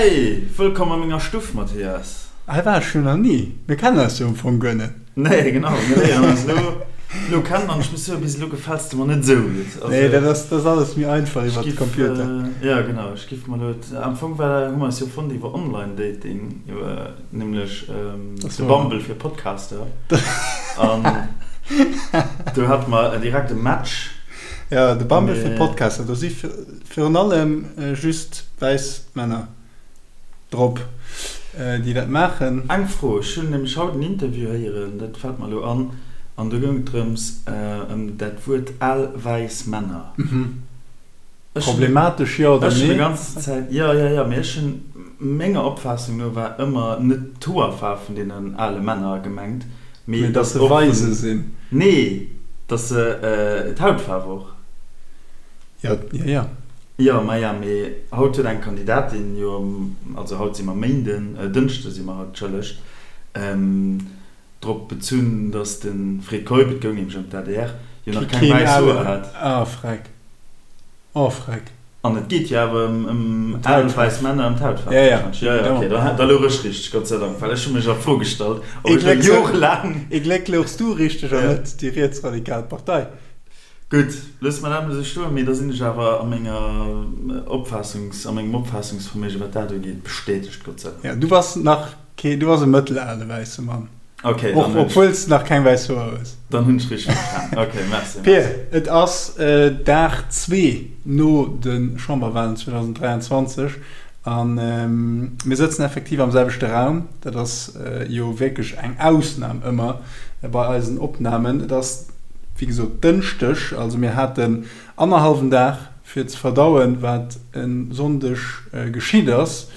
Hey, wëllkomm a menger Stuff, Mathias. Hei war ech jo nach ni. Mir kennen eis jo am Fong guer net. Nee, genau, mir léieren eis elo elo kennen an ech muss soen, bis elo gefäls de mer net esou gutt. Also, Nee, dat ass, dat ass alles méi einfach iwwer de Computer. Jo, genau, ech giff mer elo, am Fong war, hu mer eis jo fonnt iwwer Online-Dating, iwwer nämlech de Bumble fir Podcaster. An do hate mer direkt e Match. Jo, de Bumble fir Podcaster, do si virun allem just wäiss Männer drop, déi dat maachen. Eng Fro, ech hunn nämlech haut en Interview héieren, dat fält mer elo an, an do goung et drëms, ëm dat Wuert al wäiss Männer. Problematesch, jo oder nee? Ech hunn déi ganz Zäit, jo, jo, jo, mee ech hunn, menger Opfaassung no war ëmmer net d'Hoerfaarf vun deenen ale Männer gemengt, mee dass se weise sinn. Nee, dass se d'Hautfaarf och. Jo, jo, jo. Jo, maja, mee haut huet eng Kandidatin jo, also haut si mer Méinden, Dënschde si mer haut, entschëllegt, drop bezunn, datt de Fred Keup, et goung nämlech ëm d'ADR, jo nach keng wäiss Hoer hat. Ah, freck. Oh, freck. An et geet jo awer ëm al wäiss Männer, ëm d'Hautfaarf warscheinlech. Jo, jo, okay, da louch ech richteg, Gott sei Dank, well ech hu mech a Fro gestallt, ob ech elo jorelaang. Ee Gléck louchs du richteg an net déi rietsradikal Partei. Gutt, loosse mer dat emol esou stoen, mee da sinn ech awer a menger Opfaassungs, a mengem Opfaassungsverméige wat dat ugeet, bestätegt, Gott sei Dank. Jo, du bass nach kee, du bass e mëttelale wäisse Mann. Okay, dann hunn ech. Obwuel s de nach keng wäiss Hoer hues. Dann hunn ech richteg verstan. Okay, merci. Pir, et ass Dag zwee no de Chamberwalen 2023 a mir sëtzen effektiv am selwechte Raum. Dat ass jo wierklech eng Ausnam ëmmer bei eisen Opnamen. Et ass wéi gesot Dënschdeg, also mir haten annerhallwen Dag fir ze verdauen, wat e Sonndeg geschitt ass.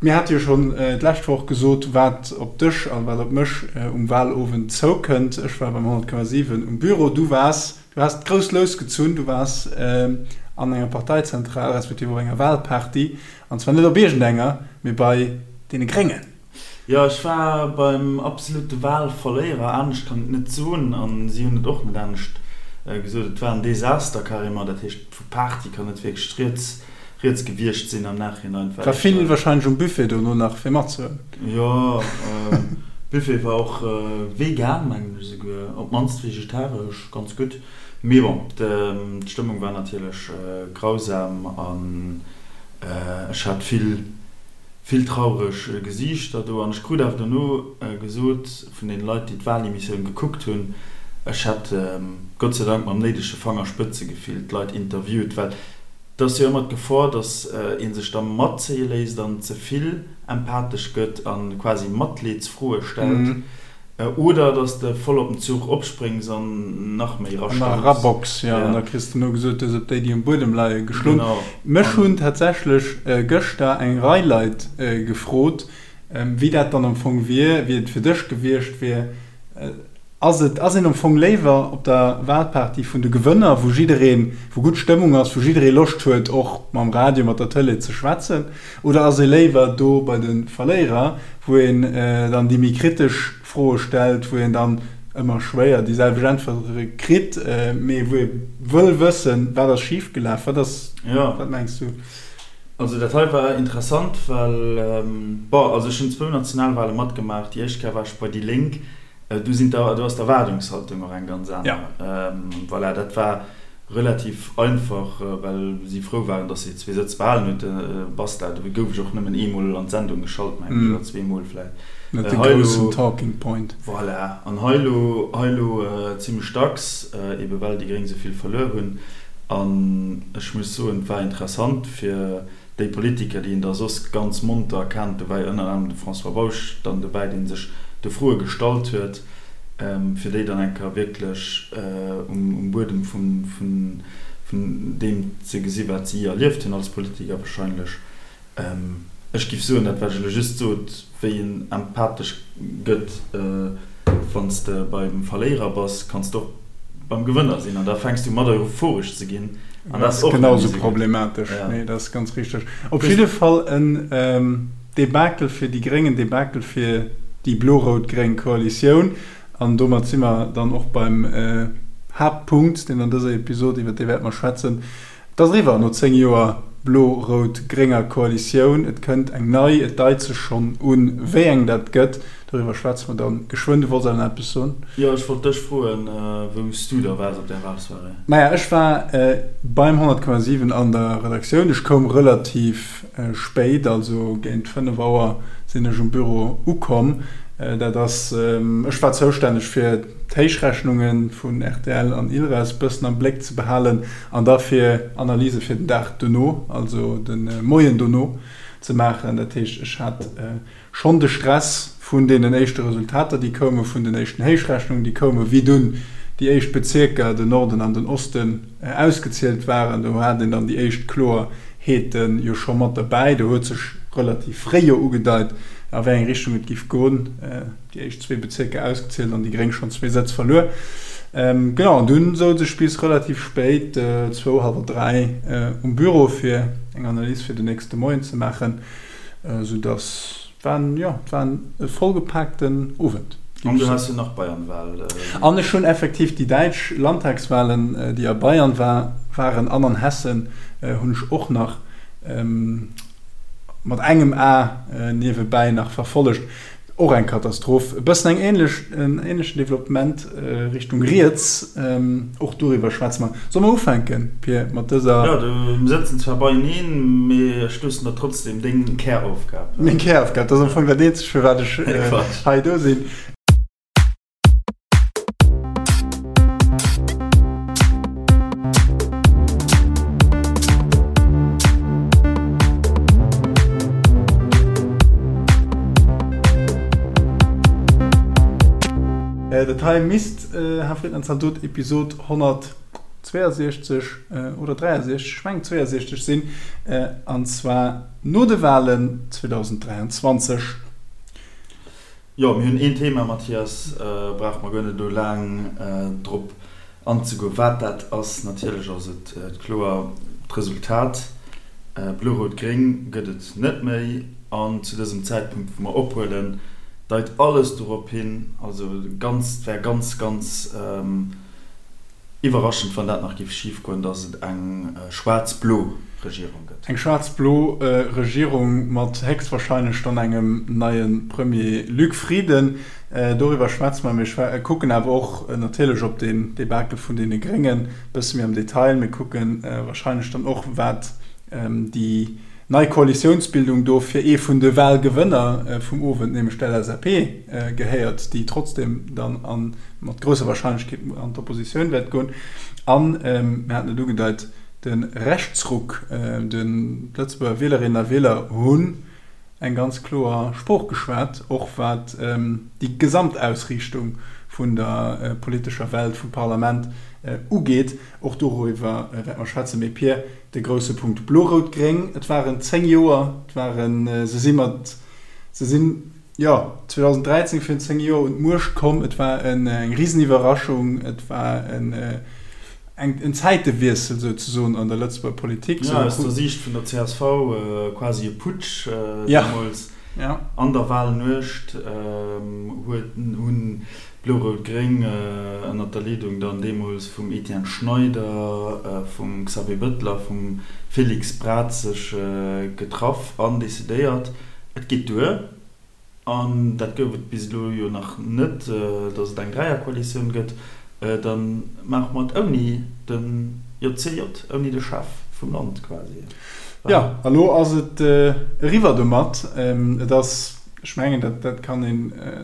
Mir hate jo schonn d'lescht Woch gesot, wat op dech a wat op mech um Walowend zoukënnt. Ech war beim 100,7 um Büro, du waars, du has d'grouss Lous gezunn, du waars an enger Parteizentral, respektiv op enger Walparty, an zwar net op iergendenger, mee bei deene Gréngen. Jo, ech war beim absolute Wahlverléierer, anescht kann et net soen, an si hunn et och net anescht gesot. Et war en Desaster carrément, dat heescht vu Party kann net wierklech rieds rieds gewiescht sinn am Nachhinein. War vill wahrscheinlech um Buffet dono nach fir matzehuelen. Jo, Buffet war och vegan mengen ech esouguer, op d'mannst vegetaresch, ganz gutt. Mee bon, d'Stëmmung war natierlech grausam an ech hat vill. Vill traureg Gesiichter do an ech krut awer dono gesot vun den Leit déi d'Wahlemissioun gekuckt hunn, ech hätt Gott sei Dank mam néidege Fangerspëtzegefill d'Leit interviewt, well et ass jo ëmmer d'Gefor, datt ee sech da matzéie léisst an ze vill empathesch gëtt a quasi Matleedsfroe stellt. Oder dass de voll op den Zuch opspréngs an nach méi An nach erabox, jo. An da kriss de no gesot, du hues op déi, déi um Buedem leie geschloen. Mech hunn tatsächlech gëschter eng Rei Leit gefrot, wéi dat dann am Fong wier, wéi et fir dech gewiescht wier. Ass et, ass een am Fong léiwer op der Wahlparty vun de Gewënner, wou jiddereen, wou gutt Stëmmung ass, wou jidderee Loscht huet, och mam Radio, mat der Tëlee ze schwätzen? Oder ass ee léiwer do bei de Verléierer, wou een dann déi méi kritesch Froe stellt, wou een dann ëmmer schwéier déi selwecht Äntwere kritt, mee wou ee wëll wëssen, wat ass schif gelaf? Wat ass, wat mengs du? Also dat hei war interessant, well, bon, also ech hunn zwou Nationalwale matgemaach. Déi éischt Kéier war ech bei déi Lénk, do sinn d'Er, do ass d'Erwaardungshaltung och eng ganz aner. Voilà, dat war Relativ einfach, well si frou waren, dass si zwee Sëtz behalen huet. Basta, do gouf ech och nëmmen eemol an d'Sendung geschalt, mengen ech, oder zweemol vläicht. Net de groussen Talking Point. Voilà. An hei elo, hei elo zimmlech dacks, ebe well déi Gréng esou vill verluer hunn. An ech muss soen, et war interessant fir Déi Politiker, déi een da soss ganz monter kennt, do war jo ënner anerem de François Bausch dann dobäi, dee sech de Froe gestallt huet, fir déi dann eng Kéier wierklech um Buedem vun deem ze gesi wat si erlieft hunn als Politiker wahrscheinlech. Ech giff soen, dat wat ech elo just sot, wéi een empathesch gëtt, wann s de beim Verléierer bass, kanns de och beim Gewënner sinn an da fänks du mat euphoresch ze ginn an dat ass och net méi esou gutt. Problematesch, nee dat ass ganz richteg. Op jidde Fall en Debakel fir déi Gréng, en Debakel fir déi blo-rout-gréng Koalitioun an domat si mer dann och beim Haaptpunkt, deen an dëser Episod, iwwer dee wäerte mer schwätzen. Et ass eriwwer no 10 Joer. blo-rout-grénger Koalitioun. Et kënnt eng nei, et deit sech schonn un, wéi eng dat gëtt. Doriwwer schwätze mer dann geschwënn. Du wollts awer nach eppes soen? Jo, ech wollt dech froen, wou s du da waars op där Walsoirée? Maja, ech war beim 100,7 an der Redaktioun. Ech koum relativ spéit, also géint 5 Auer sinn ech um Büro ukomm. Dat ass, ech war zoustänneg fir d'Héichrechnunge vun rtl an Ilres bëssen am Bléck ze behalen an da fir Analyse fir den Dag dono, also de Moien dono ze maachen. Dat heescht, ech hat Schonn de Stress vun deenen éischte Resultater, déi koumen, vun den éischten Héichrechnungen, déi koumen, wéi dunn déi éischt Bezierker, den Norden an den Osten, ausgezielt waren. Do hat een dann déi éischt Kloerheete jo scho mat derbäi. Do huet sech relativ fréi jo ugedeit, a wéi eng Richtung et giff goen. Déi éischt zwee Bezierker ausgezielt an déi Gréng schonn zwee Sëtz verluer. Genau, an dunn souz ech bis relativ spéit, zwou, hallwer dräi, um Büro, fir eng Analys fir den nächste Moien ze maachen. Sou dass et war en, jo, et war e vollgepaakten Owend. An du has jo nach Bayernwahl. An ech hunn effektiv déi däitsch Landtagswahlen, déi a Bayern war, waren an an Hessen, hunn ech och nach mat engem A niewebäi nach verfollegt. Och eng Katastroph. E bëssen eng ähnlech, en ähnlechen Developpement Richtung riets. Och doriwwer schwätze mer. Solle mer ufänken, Pir, mat dëser. Jo, du, mir sëtzen zwar beieneen, mee ech loossen der trotzdem deng Käraufgab. Meng Käraufgab, dat ass am Fong dat eenzegt, fir wat ech hei do sinn. Dat hei misst, Här Friedland Zaldot, Episod 162 oder 63, ech mengen 62 sinn, an zwar no de Wahlen 2023. Jo, mir hunn een Thema, Mathias, brauche mer guer net elo laang drop anzegoen, wat dat ass. Natierlech ass et kloer, d'Resultat Blo-Rout-Gréng gëtt et net méi. An zu dësem Zäitpunkt, wou mer ophuelen, deit alles dorop hin, also ganz, et wär ganz, ganz Iwwerraschend, wann dat nach géif schif goen, datt et eng schwaarz-blo Regierung gëtt. Eng schwaarz-blo Regierung mat héchstwahrscheinlech dann engem neie Premier Luc Frieden. Doriwwer schwätze mer. Mir kucken awer och natierlech op den Debakel vun deene Gréngen e bësse méi am Detail. Mir kucke wahrscheinlech dann och, wat déi Nei Koalitiounsbildung do fir ee vun de Wahlgewënner vum Owend, nämlech d'LSAP, gehéiert, déi trotzdem dann a mat grousser Wahrscheinlechkeet an d'Oppositioun wäert goen. An, mir haten et ugedeit, de Rechtsruck, den d'Lëtzebuerger Wielerinnen a Wieler hunn eng ganz kloer Sprooch geschwat, och wat déi Gesamtausriichtung vun der politescher Welt, vum Parlament ugeet. Och doriwwer wäerte mer schwätzen. Mee Pir, de grousse Punkt Blo-Rout-Gréng, et waren 10 Joer, et waren, se si mat, se sinn, jo, 2013 virun 10 Joer un d'Muecht komm. Et war eng Riseniwwerraschung, et war en, eng, en Zäitewiessel souzesoen an der Lëtzebuerger Politik. Jo, aus der Siicht vun der csv quasi e Putsch deemools. An der Wahlnuecht huet, hunn Blo-Rout-Gréng, ënnert der Leedung dann deemools vum Etienne Schneider, vum Xavier Bëttel a vum Félix Braz sech getraff an decidéiert, et geet duer. An dat gouf et bis elo jo nach net, datt et eng Dräierkoalitioun gëtt. Da maache mer et ouni de JCJ, ouni de Chef vum Land quasi. Jo, a lo ass et eriwwer domat. Et ass Ech mengen, dat, dat kann ee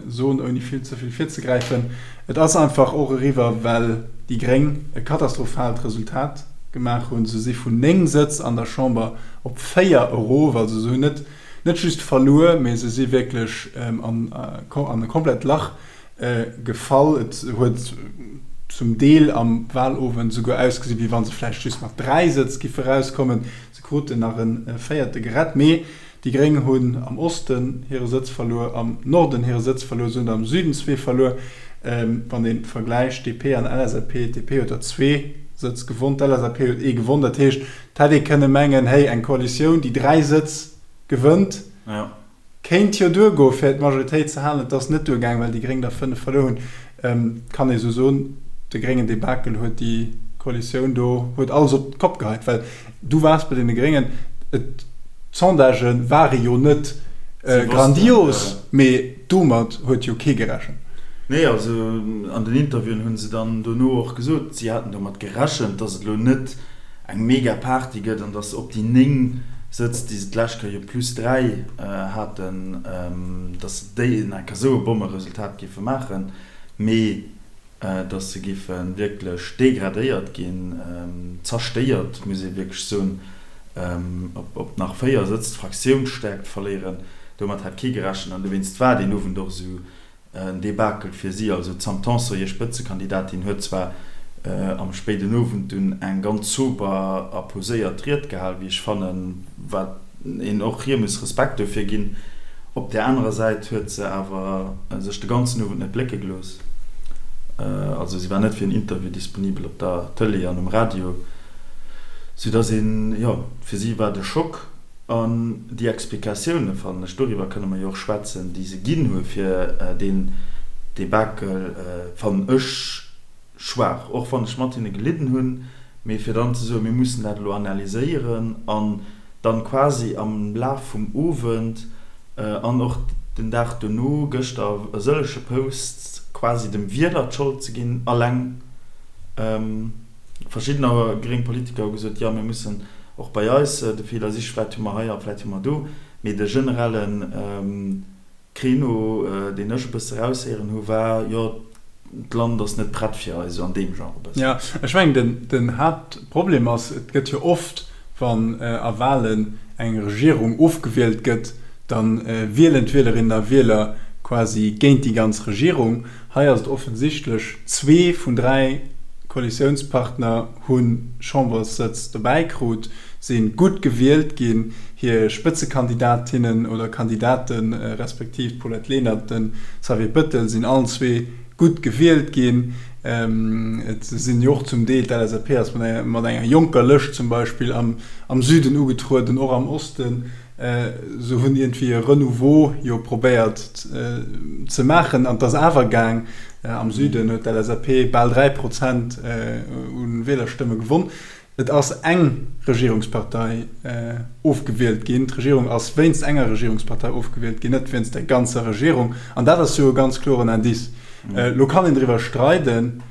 soen, ouni vill ze vill virzegräifen. Et ass einfach och eriwwer, well déi Gréng e katastrophaalt Resultat gemaach hunn. Se si vun 9 Sëtz an der Chamber op 4 erof. Also se hunn net, net just verluer, mee se si wierklech an, an e komplett Lach gefall. Et huet zum Deel am Wahlowend esouguer ausgesinn, wéi wa se vläicht just mat 3 Sëtz giffe erauskommen. Se kruten nach e véierte gerett, mee Déi Gréng hunn am Osten hire Sëtz verluer, am Norden hire Sëtz verluer, se hunn der am Süden zwee verluer. Wann ee vergläicht DP an LSAP, d'DP huet der zwee Sëtz gewonn, d'LSAP huet ee gewonn. Dat heescht, et hätt ee kënne mengen, héi eng Koalitioun, déi 3 Sëtz gewënnt, kéint jo duergoe fir d'Majoritéit ze halen. Et ass net duergaang, well déi Gréng der 5 verluer hunn. Kann ee sou soen, de gréngen Debakel huet déi. Koalitioun do huet alles op d'Kopp geheit, well du waars bei deene Gréngen, et, d'Sondagë ware jo net grandios, mee domat huet jo kee gerechent. Nee, also an den Interviewen hu se dann dono och gesot, si haten domat gerechent, datt et elo net eng mega Party gëtt an datt se op déi 9 Sëtz, déi se d'lescht Kéier jo plus 3 haten, datt se déi en enker esou e Bommeresultat géife maachen. Mee datt se géife wierklech degradéiert ginn, zerstéiert, muss ee wierklech soen, op nach 4 Sëtz d'Fraktiounsstäerkt verléieren, domat hat kee gerechent an dowéinst war deen Owend och esou en Debakel fir si. Also d'Sam Tanson, hir Spëtzekandidatin, huet zwar am spéiden Owend dunn eng ganz sober a poséiert Ried gehal, wéi ech fannen, wat een och hir muss Respekt dofir ginn. Op där anerer Säit huet se awer sech de ganzen Owend net blécke gelooss. Also si war net fir en Interview disponibel op der Tëlee an um Radio, soudass een, jo, fir si war et e Schock. An déi Explikatioune fannen ech, doriwwer kënne mer jo och schwätzen, déi se ginn hu fir deen Debakel, fannen ech schwaach, och wann ech mat hinne gelidden hunn, mee fir dann ze soen, mir mussen dat elo analyséieren an dann quasi am Laf vum Owend an och den Dag dono, gëschter e sëllege Posts, quasi dem Wieler d'Schold ze ginn alleng. Verschiddener gréng Politiker hu gesot, jo mir mussen och bei eis de Feeler sichen, vläicht hu mer hei a vläicht hu mer do, mee de generellen Créneau, deen ech e bësse raushéieren hu war, jo, d'Land ass net prett fir eis, esou an deem Genre e bëssen. Jo, ech mengen, den Haaptproblem ass, et gëtt jo oft, wann a Wahlen eng Regierung ofgewielt gëtt, da wielen d'Wielerinnen a Wieler quasi géint déi ganz Regierung. Hei ass et offensichtlech, zwee vun 3 Koalitiounspartner hu Chamberssëtz dobäi krut, si gutt gewielt ginn, hir Spëtzekandidatinnen oder Kandidate respektiv d'Paulette Lenert, de Xavier Bettel sinn allen zwee gutt gewielt ginn. Et sinn jo och zum Deel, d'LSAP ass mat enger jonker Lëscht zum Beispill am Süden ugetrueden, och am Osten. Se hunn iergendwéi e Renouveau jo probéiert ze maachen an et ass awer gaang. Am Süden huet d'LSAP bal 3 Prozent u Wielerstëmme gewonn. Et ass eng Regierungspartei ofgewielt ginn. D'Regierung ass wéinst enger Regierungspartei ofgewielt ginn, net wéinst der ganzer Regierung. An dat ass jo e ganz kloren Indice. Elo kann een driwwer streiden,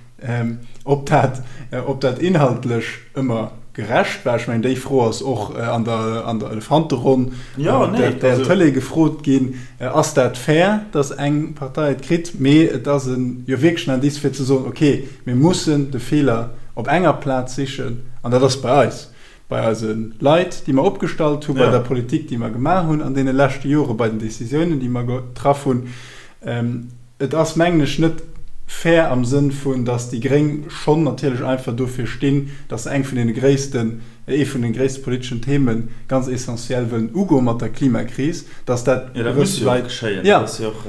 Ob dat, ob dat inhaltlech ëmmer gerecht war, ech mengen, déi Fro ass och an der, an der Elefanteronn op der rtl Tëlee gefrot ginn, Ass dat fair, datt eng Partei et kritt? Mee et ass e jo wierklech en Indice fir ze soen, okay, mir mussen de Feeler op enger Plaz sichen, an dat ass bei eis, bei eise Leit, déi mer opgestallt hunn, bei der Politik, déi mer gemaach hunn an deene leschte Jore, bei den Décisiounen, déi mer getraff hunn. Et ass, mengen ech, net fair am Sënn vun, datt déi Gréng schonn natierlech einfach dofir stinn, datt se eng vun deene gréissten, ee vun de gréisste politeschen Theme ganz essentiell wëllen ugoe mat der Klimakris, datt dat Jo, dat muss jo och geschéien, dat ass jo och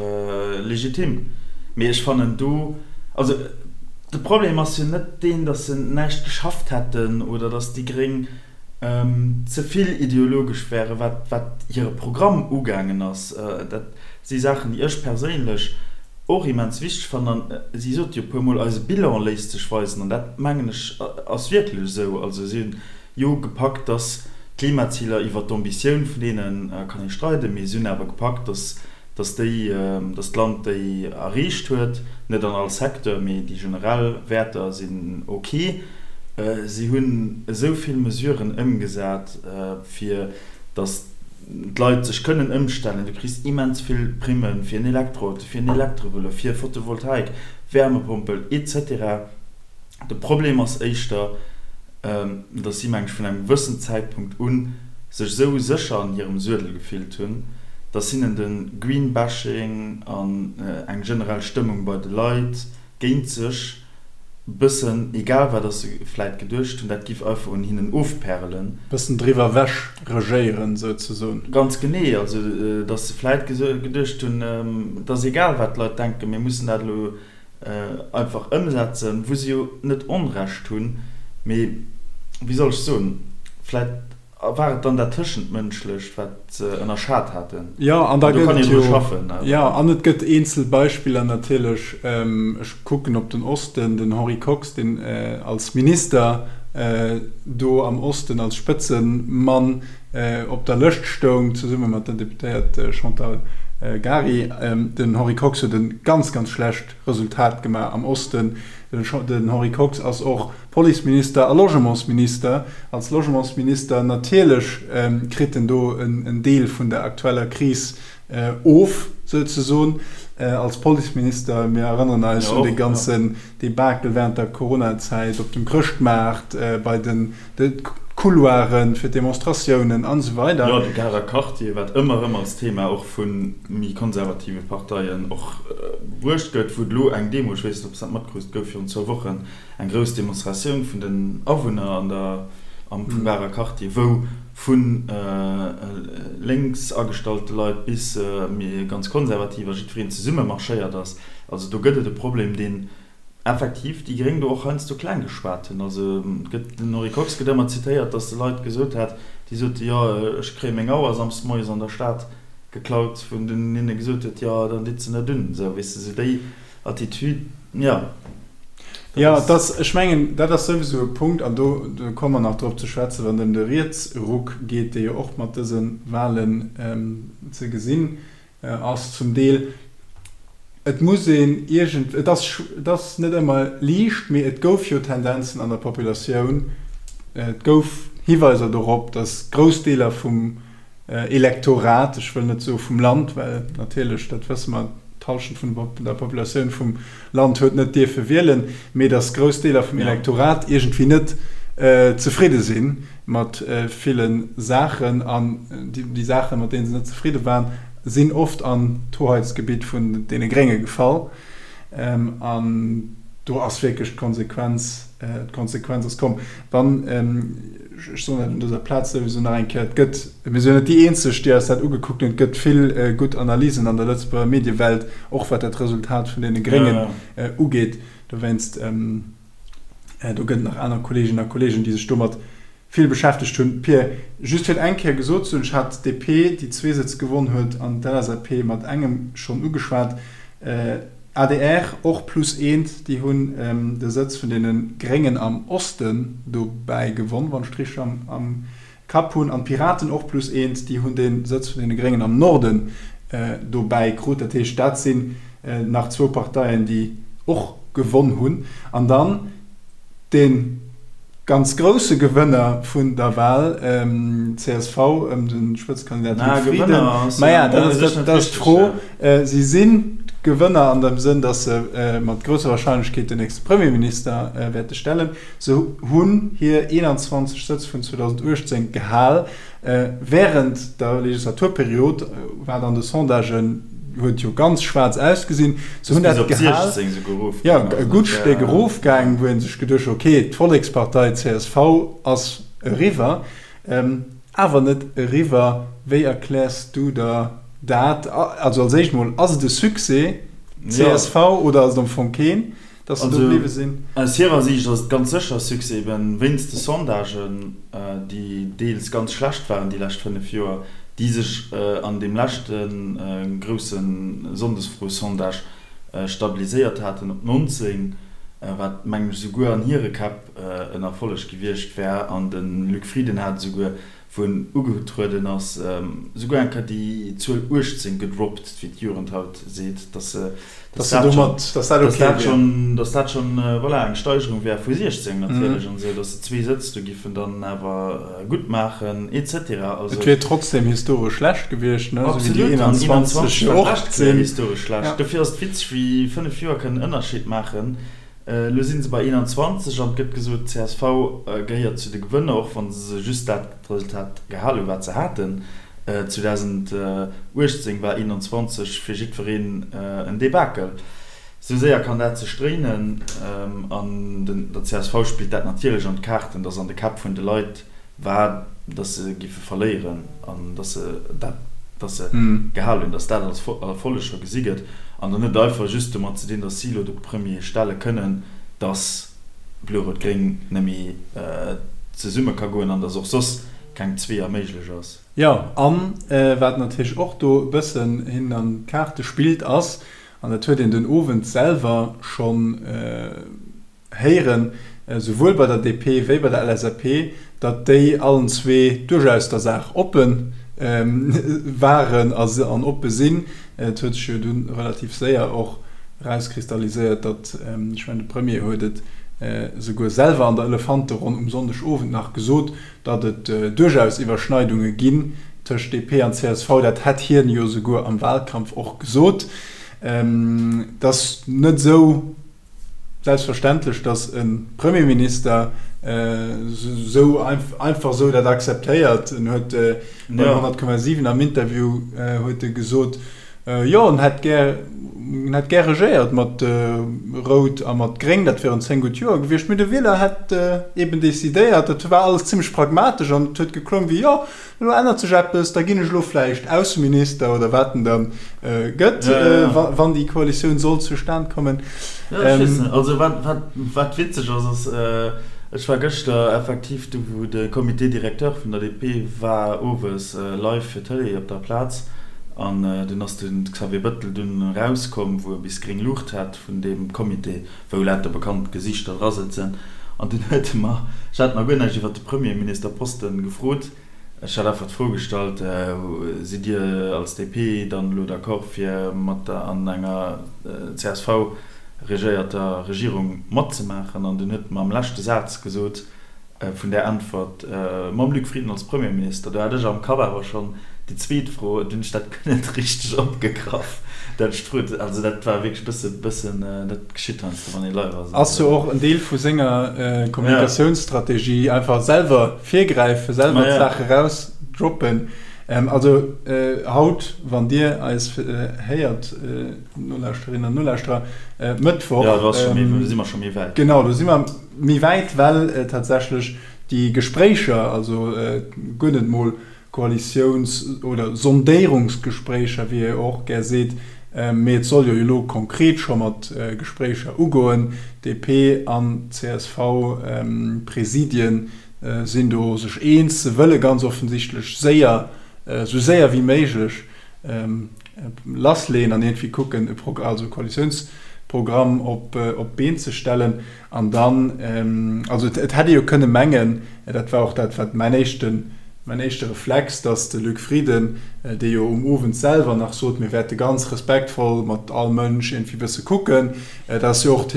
legitim. Mee ech fannen do, also de Problem ass jo net deen, datt se näischt geschafft hätten oder datt déi Gréng ze vill ideologesch wären, wat, wat hire Programm ugaangen ass. Dat si Saachen, déi ech perséinlech och immens wichteg fannen. An si sot jo e puermol, eise Bilan léisst sech weisen. An dat, mengen ech, ass wierklech esou. Also si hunn jo gepackt, dass d'Klimaziler, iwwert d'Ambitioun vun deene kann ee streiden, mee si hunn awer gepackt, dass dass déi, dass d'Land déi erreecht huet, net an all Secteur, mee déi generell Wäerter sinn ok. Si hunn esou vill Mesuren ëmgesat, fir dass d'Leit sech kënnen ëmstellen. Du kriss immens vill Primme fir en Elektroauto, fir en Elektrovëlo, fir Photovoltaik, Wärmepompel, etc. De Problem ass éischter, dass si, meng ech, vun engem gewëssen Zäitpunkt u sech esou sécher an hirem Suedel gefillt hunn, dass hinnen de Greenbashing an eng generell Stëmmung bei de Leit géint sech bëssen egal war, dass se vläit geduecht hunn, dat giff einfach un hinnen ofpärelen. Bëssen driwwer ewech regéieren, souzesoen. Ganz genee, also dass se vläit geduecht hunn, et ass egal, wat d'Leit denken, mir mussen dat elo einfach ëmsetzen, wou se jo net Onrecht hunn, mee wéi soll ech soen, vläit. War et dann dat Tëschentmënschlecht, wat se ënnerschat haten? Jo, an da gëtt et jo, jo, an et gëtt eenzel Beispiller natierlech. Ech kucken op den Osten, den Henri Kox, deen als Minister do am Osten als Spëtzemann op der Lëscht stoung, zesumme mat der Deputéiert Chantal Gary. Den Henri Kox huet e ganz, ganz schlecht Resultat gemaach am Osten. Den Henri Kox ass och Policeminister a Logementsminister. Als Logementsminister natierlech kritt en do en Deel vun der aktueller Kris of, souzesoen. Als Policeminister, mir erënneren eis un dee ganzen Debakel während der Coronazäit op dem Chrëschtmaart, bei den Couloiren fir d'Demonstratiounen an esou weider. Jo, de Garer Quartier, wat ëmmer erëm als Thema och vu méi konservative Parteien och bruecht gëtt, wou et elo eng Demo, ech weess net, ob s dat matkrus, gouf virun zwou Wochen, eng grouss Demonstratioun vun den Awunner an der am vum Garer Quartier, wou vu lénks agestallte Leit bis méi ganz konservativ a jiddwereen zesumme marschéiert ass. Also do gëtt et e Problem, deen effektiv déi Gréng do och heiansdo kleng geschwat hunn. Also et gëtt, den Henri Kox gëtt ëmmer zitéiert, datt e Leit gesot hätt, déi sote jo ech kréie meng Auer samsdes moies an der Stad geklaut, wou en dunn hinne gesot huet, jo dann ditt se net un. Esou, weess de, esou déi Attitude, jo. Jo, et ass, ech mengen, dat ass souwisou e Punkt, an do komme mer nach drop ze schwätzen, wann et ëm de Rietsruck geet, dee jo och mat dëse Wahlen ze gesinn ass zum Deel. Et muss een iergend, et ass, et ass net ëmmer liicht, mee et gouf jo Tendenzen an der Populatioun, et gouf Hiweiser dorop, datt grouss Deeler vum Elektorat, ech wëll net soe vum Land, well natierlech, dat wësse mer, d'Hallschent vun der Populatioun vum Land huet net dierfe wielen, mee datt grouss Deeler vum Elektorat iergendwéi net zefridde si mat ville Saachen. An déi Saachen, mat deene se net zefridde waren, sinn oft an d'Hoheitsgebitt vun deene Grénge gefall. An do ass wierklech d'Konsequenz, d'Konsequenz ass komm. Dann, ech soen dat un dëser Plaz souwisou nach eng Kéier, et gëtt, mir sinn jo net déi Eenzeg, déi eis dat ugekuckt hunn, et gëtt vill gutt Analysen an der Lëtzebuerger Mediewelt, och wat dat Resultat vun deene Gréngen ugeet. Dowéinst, do gëtt et nach aner Kolleeginnen a Kolleegen, déi sech domat vill beschäftegt hunn. Pir, just fir et eng Kéier gesot ze hunn, ech hat d'DP, déi zwee Sëtz gewonn huet, an d'LSAP mat engem schonn ugeschwat. Adr och plus eent, déi hunn de Sëtz vun deene Gréngen am Osten dobäi gewonn, wann ech et richteg am Kapp hunn. An d'Piraten och plus eent, déi hunn de Sëtz vun deene Gréngen am Norden dobäi krut. Dat heescht, dat sinn nach zwou Parteien, déi och gewonn hunn. An dann de ganz grousse Gewënner vun der Wal, csv ëm de Spëtzekandidat Luc Frieden. Maja, dat ass d'Fro. Si sinn Gewënner an dem Sënn, datt se mat grousser Warscheinlechkeet den nächste Premierminister wäerte stellen. Se hunn hir 21 Sëtz vun 2018 gehal. Wärend der Legislaturperiod, wat an de Sondagen huet jo ganz schwaarz ausgesinn, se hunn dat gehal, jo, e gutt Stéck erofgaang, wou ee sech geduecht huet, okay, d'Vollekspartei csv ass eriwwer, awer net eriwwer. Wéi erkläers du der dat? Also als éischt mol, ass et e Succès, csv, oder ass et am Fong keen? Dass se do bliwwe sinn. Aus hirer Siicht ass et ganz sécher e Succès, eben wéinst de Sondagen, déi deels ganz schlecht waren déi lescht 5 Joer, déi sech an deem leschte grousse Sonndesfro-Sondage stabiliséiert haten op 19, wat mengen ech esouguer an hire Käpp en Erfolleg gewiescht wär. An de Luc Frieden hat esouguer wou en ugetrueden ass, souguer eng Kéier déi Zuel 18 gedroppt, wéi d'Jugend haut seet, dass dass dat schonn, dass dat schonn, voilà, eng Steigerung wär vu 16 natierlech an esou, dass se zwee Sëtz do giffen dann awer gutt maachen et cetera. Also. Et wier trotzdem historesch schlecht gewiescht, ne, esou wéi déi 21 jo och sinn. Historesch schlecht. Dofir ass et witzeg, wéi 5 Joer kënnen en Ënnerscheed maachen. Elo si se bei 21 an et gëtt gesot, csv gehéiert zu de Gewënner, och wa se just dat Resultat gehal hunn, wat se haten. 2018 war 21 fir jiddwereen en Debakel. Esou séier kann dat sech dréinen an der csv spillt dat natierlech an d'Kaarten, datt an de Käpp vun de Leit war, datt se giffe verléieren an datt se dat, datt se gehal hunn, datt dat als Erfolleg scho gesi gëtt an dann net einfach just domat ze dinn, datt si elo de Premier stelle kënnen, datt Blo-Rout-Gréng net méi zesumme ka goen an datt och soss. keng Zweeër méiglech ass. Jo, an wat natierlech och do e bëssen hinnen an d'Kaarte spillt ass, an dat huet een den Owend selwer schonn héieren, esouwuel bei der DP wéi bei der LSAP, datt déi allen zwee duerchaus der Saach oppe waren an oppe sinn. Et huet sech jo dunn relativ séier och erauskristalliséiert, datt, ech mengen de Premier huet et esouguer selwer an der Elefanteronn um Sonndegowend nach gesot, datt et duerchaus Iwwerschneidunge ginn tëscht DP an csv. Dat hätt hien jo esouguer am Wahlkampf och gesot. Et ass net esou selbstverständlech, datt e Premierminister esou einfach esou dat akzeptéiert. En huet bei 100,7 am Interview huet e gesot, jo en hätt gär, en hätt gär regéiert mat Rout a mat Gréng, dat wieren 10 gutt Joer gewiescht, mee de Wieler hätt eben decidéiert. Dat war alles zimmlech pragmatesch an et huet geklongen wéi, jo, Elo ännert sech eppes, da ginn ech elo vläicht Ausseminister oder wat en da gëtt, wann déi Koalitioun sollt zustan kommen. Jo, ech weess net. Also wat, wat, wat witzeg ass, ass, ech war gëschter effektiv do, wou de Comité directeur vun der DP war, owes live fir d'Tëlee op der Plaz. An dunn ass de Xavier Bëttel dunn erauskomm, wou e bis gréng Luucht hat vun deem Comité, wou lauter bekannt Gesiichter dra sëtzen. An dunn huet e mer, ech hat nach guer näischt iwwert de Premierministerposten gefrot, ech hat einfach d'Fro gestallt, Sidd Dir als DP dann elo d'accord fir mat der an enger csv regéierter Regierung matzemaachen? An dunn huet e mer am leschte Saz gesot, Vun där Äntwert mam Luc Frieden als Premierminister, do hat ech am Kapp awer schonn déi zweet Fro, dunn hunn ech dat guer net richteg opgegraff, dat ech d'Fro, also dat war wierklech e bësse, bëssen, dat geschitt heiansdo, wann ee live ass. Ass jo och en Deel vu senger Kommunikatiounsstrategie, einfach selwer virgräifen, selwer d'Saach erausdroppen. Also haut, wann Dir eis héiert, Nolauschterinnen an Nolauschterer, Mëttwoch. Jo, do ass scho méi, do si mer scho méi wäit. Genau, do si mer. Méi wäit, well tatsächlech déi Gespréicher, also guer net mol Koalitiouns oder Sondéierungsgespréicher, wéi ee och gär seet, mee et soll jo elo konkret scho mat Gespréicher ugoen, DP an CSV-Presidien sinn do sech eens, se wëlle ganz offensichtlech séier, esou séier wéi méiglech lassleeën an iergendwéi kucken, e also e Koalitiounsprogramm op d'Been ze stellen. An dann, also et hätt ee jo kënne mengen, dat war och dat, wat mäin éischten, mäin éischte Reflex, datt de Luc Frieden, dee jo um Owend selwer nach sot, mir wäerte ganz respektvoll mat all Mënsch iergendwéi bësse kucken, dat ass jo och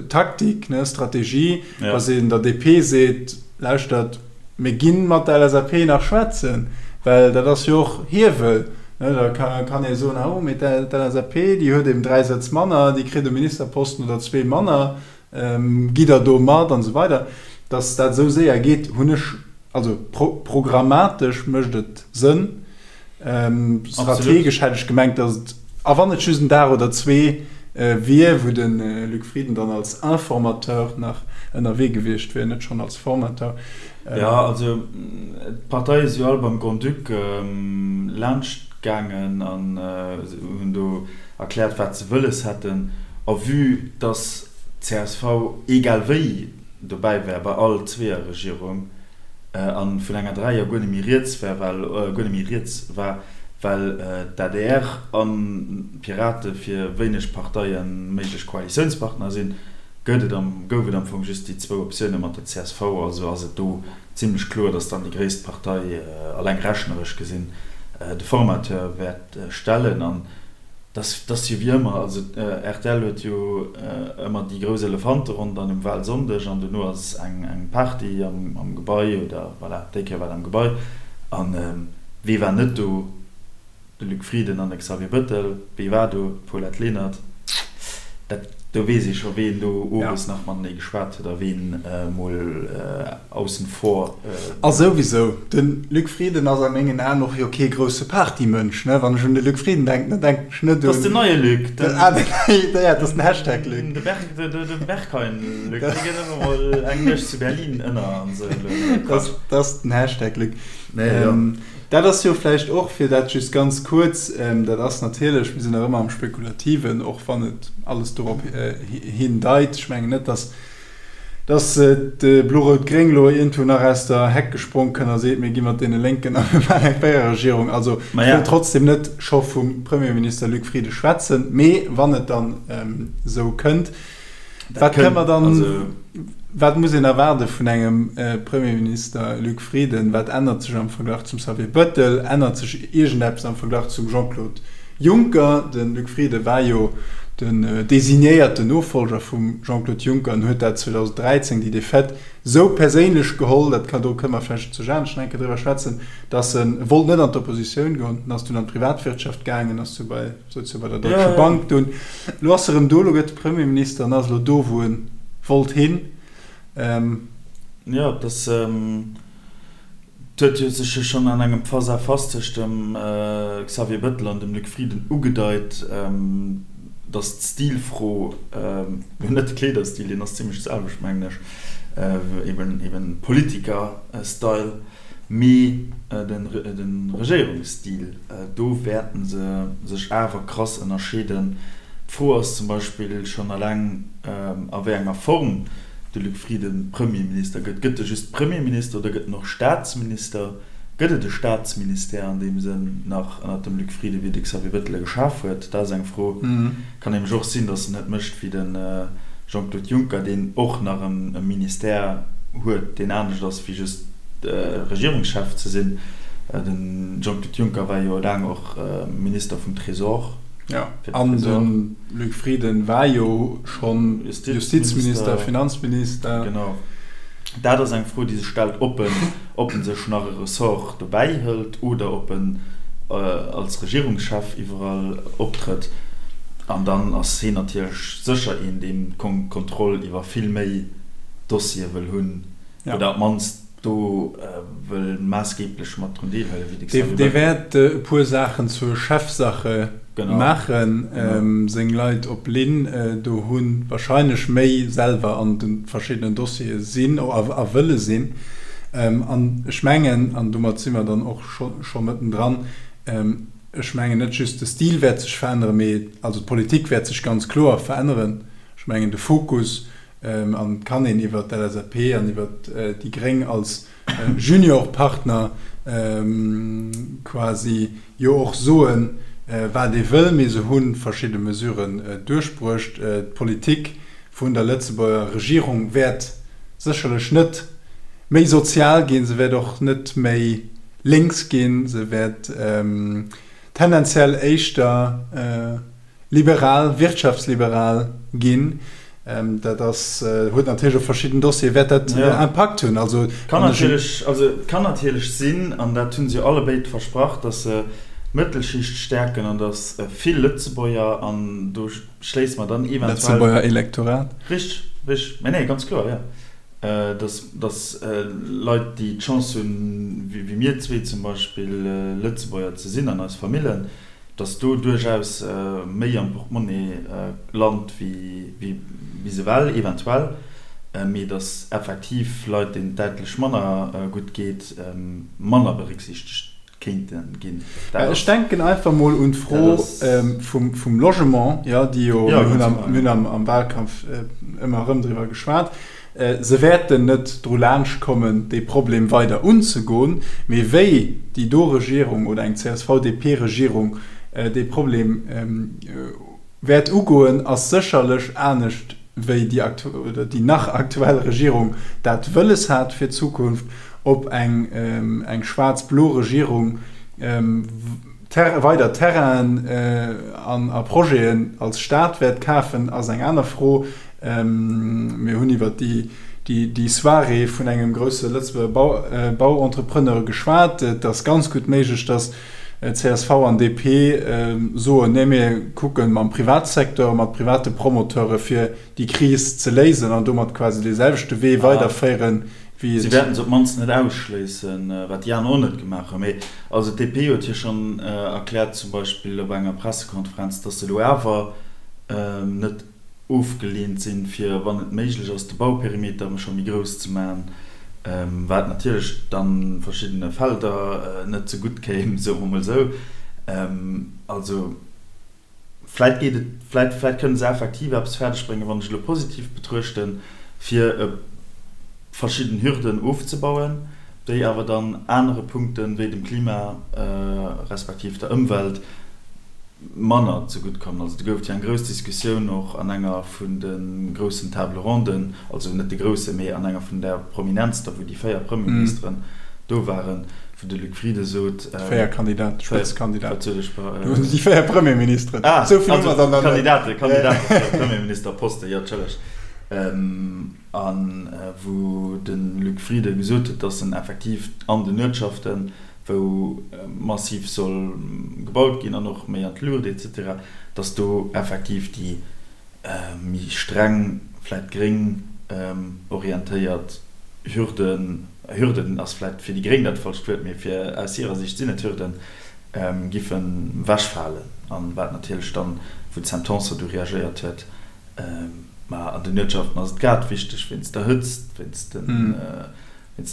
Taktik, ne, Strategie, datt een der DP seet, lauschtert, Mir gi mat der LSAP nach schwätzen, well dat ass jo och Hiewel. Da kann ee soen, oh mee d'LSAP, déi huet eben 3 Sëtz manner, déi kritt e Ministerposten oder zwee manner, gitt Der do mat an esou weider. Datt dat esou séier geet, hunn ech, also programmatesch mécht et Sënn, Strategesch hätt ech gemengt, datt et, a wann et just en Dag oder zwee wier, wou de Luc Frieden dann als Informateur nach ënnerwee gewiescht wier, net schonn als Formateur. Jo, also d'Parteie si jo all beim Grand-Duc laanscht gaangen an hunn do erkläert, wat se wëlles hätten. A vue datt csv egal wéi dobäi wär bei all Zweeërregierung, an vun enger Dräier guer net méi rieds war, well guer net méi rieds war, well d'ADR an d'Pirate fir wéineg Parteie méiglech Koalitiounspartner sinn, gëtt et am gouf et am Fong just déi zwou Optioune mat der csv. Also ass et do zimlech kloer, datt dann déi gréisst Partei, alleng rechneresch gesinn, de Formateur wäert stellen. An Dat ass jo wéi ëmmer, also rtl huet jo ëmmer déi grouss Elefanteronn dann um Wahlsonndeg an dono ass eng Party am Gebai oder voilà, déi Kéier war et am Gebai. An wee war net do? De Luc Frieden an de Xavier Bëttel. Wee war do? D'Paulette Lenert. Dat, do weess ee scho ween do owes nach matenee geschwat huet a ween mol aussen vor. A souwisou, de Luc Frieden ass a mengen Aen och jo kee grousse Partymënsch, ne? Wann ech un de Luc Frieden denken, da denken ech net un. Dat ass den neie Luc, den. Ah, den neie, ja, dat ass den Hashtag Luc. De Berg, de, de Berghain Luc, dee geet ëmmer mol eng Nuecht zu Berlin ënner an esou. Dat, dat ass den Hashtag Luc. Nee, jo. Dat ass jo vläicht och, fir dat just ganz kuerz, dat ass natierlech, mir sinn nach ëmmer am Spekulativen, och wann et alles dorop hindeit, ech mengen net, datt. Dass de Blo-Rout-Gréng elo iergendwou nach aus der Heck gesprong kënn a seet, mir gi mat deene Lénken a mir maachen eng Véiererregierung. Also ech wëll trotzdem net scho vum Premierminister Luc Frieden schwätzen, mee wann et dann esou kënnt, wat kënne mer dann, wat muss een erwaarde vun engem Premierminister Luc Frieden? Wat ännert sech am Verglach zum Xavier Bettel? Ännert sech iergendeppes am Verglach zum Jean-Claude Juncker? De Luc Frieden war jo den designéierten Nofolger vum Jean-Claude Juncker an huet dat 2013, déi Defaite, sou perséinlech geholl, dat kann, do kënne mer vläicht zu Janesch nach eng Kéier driwwer schwätzen, datt en wollt net an d'Oppositioun goen, en ass dunn an d'Privatwirtschaft gaangen, ass du bei, souz jo bei der Deutsche Bank dunn. Elo ass e rëm do, elo gëtt e Premierminister an ass elo do, wou e wollt hin. Jo, et ass. Et huet jo sech jo schonn an engem Face-à-face tëscht dem Xavier Bettel an dem Luc Frieden ugedeit, datt d'Stilfro, jo net de Kleederstil, deen ass zimmlech de selwecht mengen ech, eben Politiker-Style, mee de Regéierungsstil, do wäerte se sech awer krass ënnerscheeden. D'Fro ass zum Beispill schonn eleng, a wéi enger Form de Luc Frieden Premierminister gëtt. Gëtt e just Premierminister oder gëtt en och Staatsminister? Gëtt et e Staatsministère an deem Sënn nach ënnert dem Luc Frieden, wéi de Xavier Bettel e geschaf huet? Dat ass eng Fro. Kann nämlech och sinn, datt en et mécht wéi de Jean-Claude Juncker, deen och nach e Ministère huet, deen anescht ass wéi just Regierungschef ze sinn. De Jean-Claude Juncker war jo laang och Minister vum Trésor. Jo, an de Luc Frieden war jo schonn Justizminister, Finanzminister. Genau. Dat ass eng Fro, déi sech stellt, ob en, ob en sech nach e Ressort dobäi hëlt oder ob en als Regierungschef iwwerall optrëtt. An dann ass hien natierlech sécher een, deen d'Kontroll iwwer vill méi Dossiere wëll hunn oder op d'mannst do wëll maassgeeblech mat drun deelhuelen, wéi de Xavier Bettel. Dee wäert e puer Saachen zur Chefsache maachen, seng Leit op Linn do hunn, wahrscheinlech méi selwer an de verschiddenen Dossiere sinn a wëlle sinn. An ech mengen, an domat si mer dann och scho mëttendran, ech mengen net just de Stil wäert sech veränneren, mee also d'Politik wäert sech ganz kloer veränneren. Ech mengen de Fokus An et kann een iwwer d'LSAP an iwwer déi Gréng als Juniorpartner quasi jo och soen, wat ee wëll. Mee se hu verschidde Mesuren duerchbruecht. D'Politik vun der Lëtzebuerger Regierung wäert sécherlech net méi sozial ginn, se wäert och net méi lénks ginn, se wäert tendenziell éischter, liberal, wirtschaftsliberal ginn. Dat ass, huet natierlech op verschidden Dossiere wäert dat Impakt hunn. Also Kann natierlech, also et kann natierlech sinn, an dat hu se jo allebéid versprach, datt se d'Mëttelschicht stäerken an datt vill Lëtzebuerger, an do schléisse mer dann eventuell. Lëtzebuerger Elektorat. Richteg, richteg, mä nee, ganz kloer, jo. Datt, datt Leit, déi d'Chance hunn, wéi mir zwee zum Beispill, Lëtzebuerger ze sinn an eis Famillen, dass do duerchaus méi am Portemonnaie lant wéi bis ewell eventuell, mee dass effektiv Leit, deenen et däitlech manner gutt geet, manner berécksiichtegt kéinte ginn. Ech denken einfach mol un d'Fro vum Logement, jo, déi jo, mir hunn am Wahlkampf ëmmer erëm driwwer geschwat, Se wäerten net dru laanscht kommen, dee Problem weider unzegoen. Mee wéi déi do Regierung oder eng CSV-DP-Regierung dee Problem wäert ugoen, ass sécherlech anescht wéi déi oder déi nach aktuell Regierung dat wëlles hat fir d'Zukunft. Ob eng eng schwaarz-blo Regierung weider Terrainen an a Projeten als Staat wäert kafen, ass eng aner Fro. Mir hunn iwwer déi Soirée vun engem grousse Lëtzebuerger Bauentrepreneur geschwat. Et ass ganz gutt méiglech, datt csv an DP soen, Nee, mir kucke mam Privatsecteur, mat private Promoteure fir déi Kris ze léisen an domat quasi dee selwechte Wee weiderféieren, wéi et. Si wäerten se op d'mannst net ausschléissen, wat déi aner och net gemaach hunn. Mee also d'DP huet jo schonn erkläert, zum Beispill op enger Pressekonferenz, datt se elo awer net ofgeleent sinn, fir, wann et méiglech ass, de Bauperimeter scho méi grouss ze maachen, wat natierlech dann verschiddene Felder net ze gutt kéim, soe mer mol esou. Also vläit geet et, vläit, vläit kënne se effektiv eppes fäerdeg bréngen, wann ech elo positiv betruechten. fir verschidden Hürden ofzebauen, déi awer dann anere Punkten, wéi dem Klima respektiv der Ëmwelt, manner zegutt kommen. Also do gouf et jo eng grouss Diskussioun och an enger vun de groussen Table ronden, also net de groussen, mee an enger vun der prominentster, wou déi 4 Premierministeren do waren, wou de Luc Frieden sot, Déi 4 Kandidaten, Spëtzekandidaten. Wat sot ech? Déi 4 Premierministeren. Ah, also Kandidaten, Kandidaten fir de Premierministerposten, jo, entschëllegt. A wou de Luc Frieden gesot huet, datt en effektiv an den Uertschaften, wou massiv soll gebaut ginn an och méi an d'Luucht et cetera, datt do effektiv déi méi streng, vläicht gréng orientéiert Hürden, Hürden ass vläicht fir déi Gréng dat falscht Wuert, mee fir aus hirer Sicht sinn et Hürden, giffen ewechfalen. An wat natierlech dann, wou d'Sam Tanson du reagéiert huet, Ma an den Uertschaften ass et grad wichteg wéinst der Hëtzt, wéinst den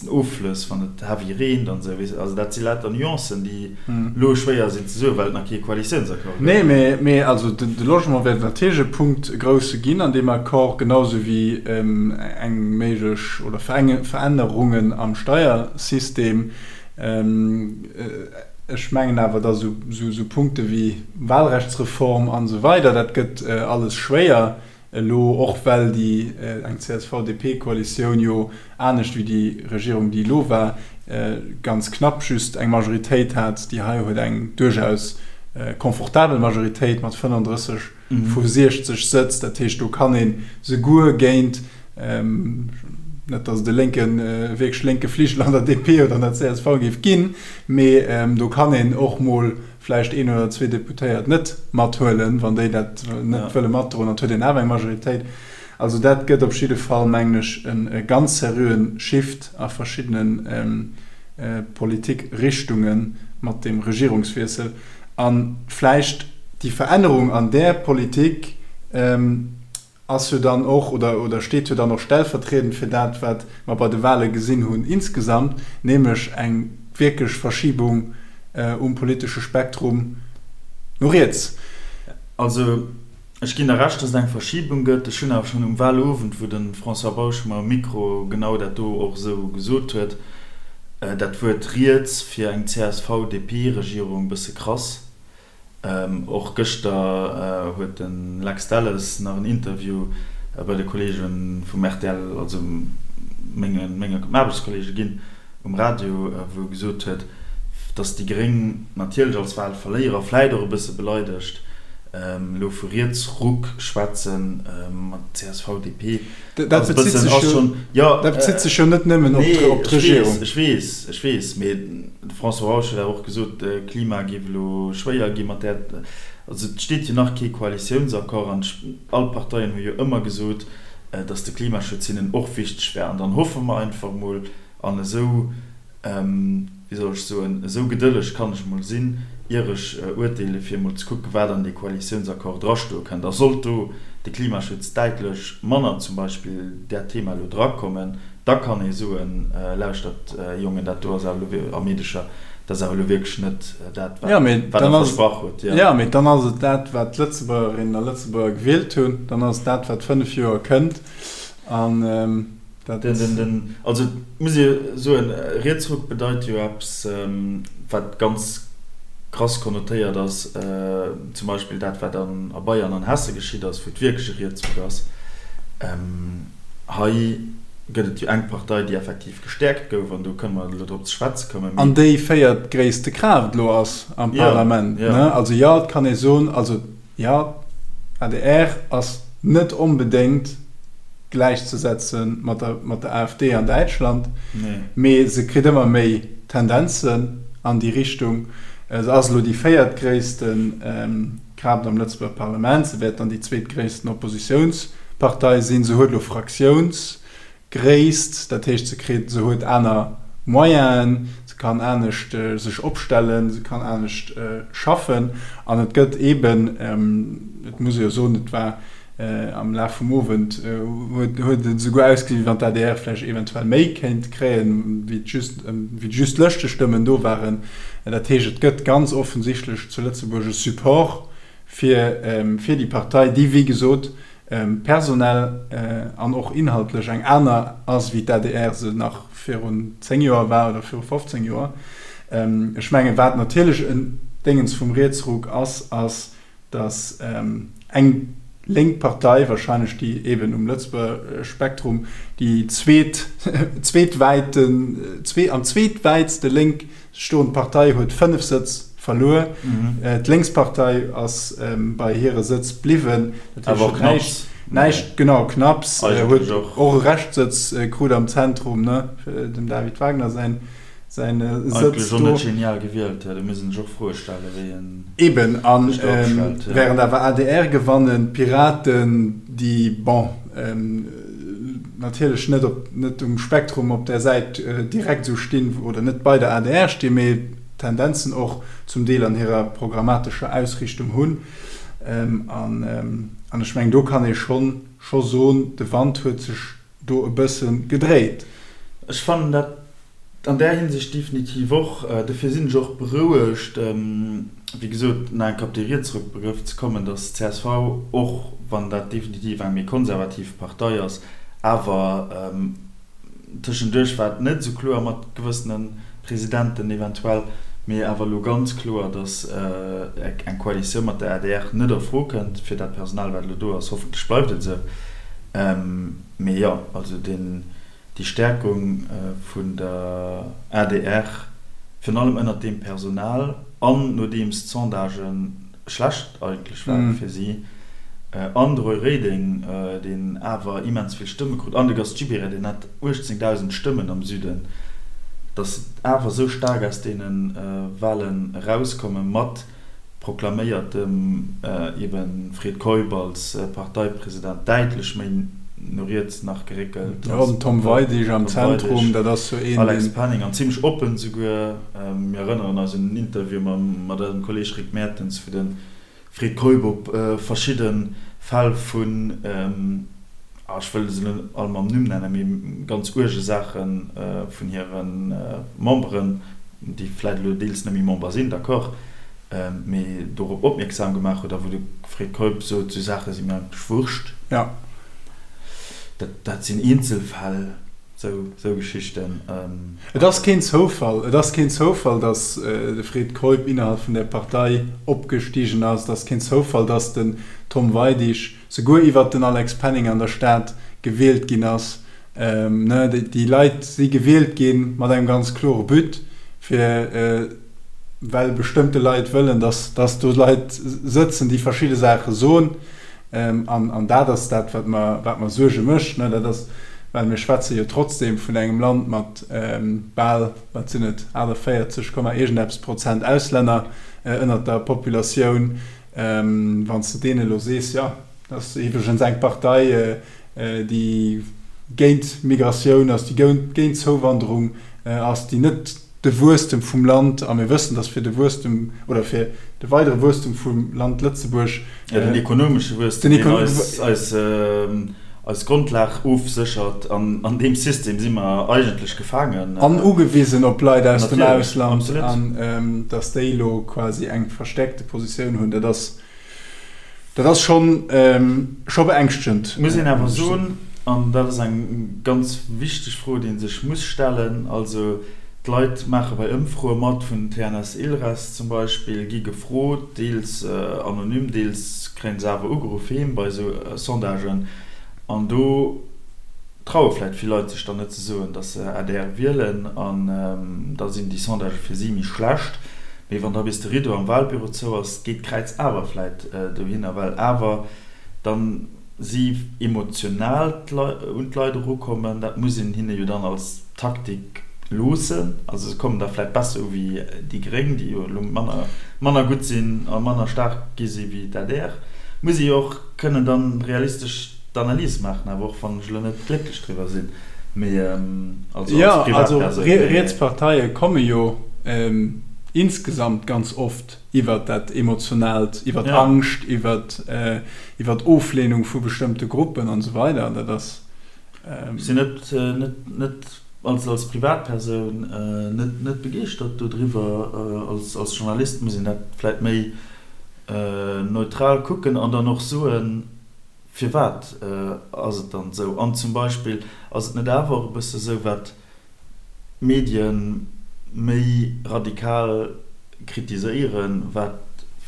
Offlëss, wann et heavy reent an esou. Also dat si lauter Nuancen, déi elo schwéier sinn ze soen, well et nach kee Koalitiounsaccord gëtt. Nee, mee also de Logement wäert natierlech e Punkt, e grousse ginn an deem Accord, genau esou wéi eng méiglech oder Verännerungen am Steiersystem. Ech mengen awer, datt esou Punkte wéi Wahlrechtsreform an esou weider, dat gëtt alles schwéier elo, och well déi eng CSV-DP-Koalitioun jo, anescht wéi déi Regierung, déi elo war, ganz knapp just eng Majoritéit hat. Déi hei huet eng duerchaus confortabel Majoritéit mat 35 vu 60 Sëtz. Dat heescht, do kann ee souguer géint, net datt et e lénken, wierklech lénke Fligel an der DP oder an der csv géif ginn, mee do kann een och mol vläicht een oder zwee Deputéiert net mathuelen, wann déi dat net wëlle matdroen, dann huet een awer eng Majoritéit. Also dat gëtt op jidde Fall, mengen ech, e ganz seriöen Shift a verschiddene Politikrichtunge mat deem Regierungswiessel. A vläicht déi Verännerung an där Politik ass jo dann och, oder oder steet jo dann och stellvertriedend fir dat, wat mer bei de Wahle gesinn hunn insgesamt, nämlech eng wierklech Verschibung um politesche Spektrum no riets. Also ech ginn der Recht, dass et eng Verschibung gëtt. Ech hunn awer schonn um Wahlowend, wou de François Bausch mer um Mikro genau dat do och esou gesot huet, dat Wuert riets fir eng CSV-DP-Regierung e bësse krass. Och gëschter huet de Lex Delles nach en Interview bei de Kolleege vum rtl, also menge menge Aarbechtskolleege ginn um Radio, wou e gesot huet, datt déi Gréng natierlech als Wahlverléierer, vläit och e bësse beleidegt, elo vu Rietsruck schwätzen mat csv, DP. Dat bezitt sech jo, dat bezitt sech jo net nëmmen op d'Regierung. Nee, ech weess, ech weess, mee de François Bausch huet awer och gesot, Klima géif elo schwéier gi mat där, also et steet jo nach kee Koalitiounsaccord an all d'Parteien hu jo ëmmer gesot, datt de Klimaschutz hinnen och wichteg wär an dann hoffe mer einfach mol an esou wéi soll ech soen, esou gedëlleg kann ech emol sinn, ier ech urteele fir emol ze kucken, wat an dee Koalitiounsaccord drastoe kënnt. A sollt do de Klimaschutz däitlech manner zum Beispill dat Thema elo drakommen, da kann ee soen, Lauschtert Jongen, dat do ass awer elo, a Meedecher, dat ass awer elo wierklech net dat, wat Der versprach hutt. Jo, mee dann ass et dat, wat d'Lëtzebuergerinnen a Lëtzebuerger gewielt hunn. Dann ass et dat, wat 5 Joer kënnt. An Dat. Den, den, also et muss ee soen, Rietsruck bedeit jo eppes, wat ganz krass konnotéiert ass, zum Beispill dat, wat an a Bayern an Hesse geschitt ass, wou et wierklech e Rietsruck ass. Hei gëtt et jo eng Partei, déi effektiv gestäerkt gouf, an do kënne mer elo drop ze schwätze kommen, mee. An déi véiertgréisste Kraaft elo ass am Parlament, ne? Also jo, et kann ee soen, also Jo, adr ass net onbedéngt gläichzesetze mat der mat der AfD an Däitschland, mee se kritt ëmmer méi Tendenzen an déi Richtung. Se ass elo déi véiertgréisste Kraaft am Lëtzebuerger Parlament, se wäert dann déi zweetgréissten Oppositiounspartei sinn. Se huet elo Fraktiouns Gréisst, dat heescht se kritt, se huet aner Moyenen, se kann anescht sech opstellen, se kann anescht schaffen an et gëtt eeben, et muss ee jo soen, et war am Laf vum Owend huet huet et esouguer ausgesinn, wéi wann d'ADR vläicht eventuell méi kéint kréien, wéi et just wéi just Lëschtestëmmen do waren. Dat heescht, et gëtt ganz offensichtlech zu Lëtzebuerg e Support fir fir déi Partei, déi wéi gesot. personell an och inhaltlech eng aner ass, wéi d'ADR se nach virun 10 Joer war oder viru 15 Joer. Ech mengen, wat natierlech en Déngens vum Rietsruck ass, ass, datt eng lénk Partei, wahrscheinlech déi eben um Lëtzebuerger Spektrum déi zweet, zweetwäiten, zwee, am zweetwäitste lénk stoend Partei huet 5 Sëtz verluer. D'Lénkspartei ass bei hire Sëtz bliwwen. Dat heescht, huet näischt, näischt, genau, knapps, huet och e Reschtsëtz krut am Zentrum, ne, dem David Wagner säin. Säin Sëtz do. Och net genial gewielt, do muss een sech och Froe stellen, wéi en Eben, a während awer adr gewannen, d'Piraten, déi, bon, natierlech net op, net um Spektrum op där Säit direkt esou stinn, oder net bei der adr stinn, mee Tendenzen och zum Deel an hirer programmatescher Ausrichtung hunn. An ech mengen, do kann ee schonn, scho soen, de Wand huet sech do e bësse gedréit. Ech fannen dat an där Hinsicht definitiv och. Dofir sinn ech och berouegt, wéi gesot, nach eng Kéier op dee Rietsruckbegrëff ze kommen, datt csv, och wann dat definitiv eng méi konservativ Partei ass, awer tëschenduerch war et net esou kloer mat gewëssene Presidenten eventuell, mee awer elo ganz kloer, datt eng Koalitioun mat der adr net a Fro kënnt fir dat Personal, wat elo do ass. Hoffentlech bleift et esou. Mee jo, also deen, déi Stärkung vun der adr, virun allem ënnert deem Personal an nodeems d'Sondagë schlecht eigentlech ware fir si, an de Roy Reding, deen awer immens vill Stëmme krut, an de Gast Gibéryen, deen hat 18.000 Stëmmen am Süden, datt se awer esou staark aus deene Wahlen erauskomme mat proklaméiertem eben Fred Keup als Parteipresident däitlech méi no riets nach geréckelt ass. Jo, den Tom Weidig am Zentrum, dat ass jo een, deen. Alex Penning, an zimlech oppen souguer. Mir erënneren eis un en Interview mat eisem Kolleeg Rick Mertens, wou de Fred Keup op verschidde Fäll vun, ech wëll se net all mam Numm nennen, mee ganz uerge Saache vun hire Memberen, déi vläit elo deels net méi Member sinn, d'accord, mee dorop opmierksam gemaach huet a wou de Fred Keup sot, esou Saache si mir eigentlech wurscht. Jo. Dat, dat sinn Eenzelfäll, esou, esou Geschichten. Et ass keen Zoufall, et ass keen Zoufall, datt de Fred Keup innerhalb vun där Partei opgestigen ass. Et ass keen Zoufall, datt den Tom Weidig souguer iwwert den Alex Penning an der Stad gewielt ginn ass. Déi Leit si gewielt gi mat engem ganz klore But, fir well bestëmmte Leit wëllen, datt do Leit sëtzen, déi verschidde Saache soen. An dat ass dat, wat mer, wat mer Suerge mécht. Dat ass, well mir schwätze jo trotzdeem vun engem Land mat bal, wat sinn et, 48 Komma iergendeppes Prozent Auslänner ënnert der Populatioun. Wann s de deene elo sees, jo, dat ass iwwregens eng Partei, déi géint Migratioun ass, déi géint Zouwanderung ass, déi net de Wuesstem vum Land, a mir wëssen, datt fir de Wuesstem oder fir de weidere Wuesstem vum Land Lëtzebuerg. Jo, den ekonomesche Wuesstem, deen eis, eis Grondlag ofséchert. An an deem System si mer eigentlech gefaangen. An ugewisen op Leit aus dem Ausland. An datt déi elo quasi eng verstäerkte Positioun hunn, dat ass, dat ass schonn, scho beängschtend. Muss een awer soen, an dat ass eng ganz wichteg Fro, déi ee sech muss stellen, also d'Leit maache bei Ëmfroe mat, vun TNS-Ilres zum Beispill, gi gefrot, deels anonym, deels kréie se awer ugeruff heem bei esou Sondagen, an do traue vläicht vill Leit sech dann net ze soen, datt se adr wielen, an da sinn déi Sondagë fir si méi schlecht. Mee wann da bis de Rideau am Wahlbüro zou ass, geet d'Kräiz awer vläicht dohinner, well awer dann si emotional un d'Leit erukommen. Dat muss een hinne jo dann als Taktik loossen. Also se kommen da vläicht besser u wéi déi Gréng, déi jo elo manner manner gutt sinn a manner staark gi si wéi d'ADR. Muss ee jo och kënnen dann realistesch d'Analys maachen, awer och wann ech elo net glécklech driwwer sinn, mee also als Privatpersoun. Jo, also riets Parteie komme jo insgesamt ganz oft iwwert dat Emotionaalt, iwwert Angscht, iwwert iwwert Oflehnung vu bestëmmte Gruppen an esou weider. Dat ass. Ech sinn net net net als als Privatpersoun net net begeeschtert dodriwwer. Als als Journalist muss een dat vläit méi neutral kucken an dann och soen. Firwat ass et dann esou? An zum Beispill, ass et net awer och e bësse esou, wat d'Medien méi radikal kritiséieren, wat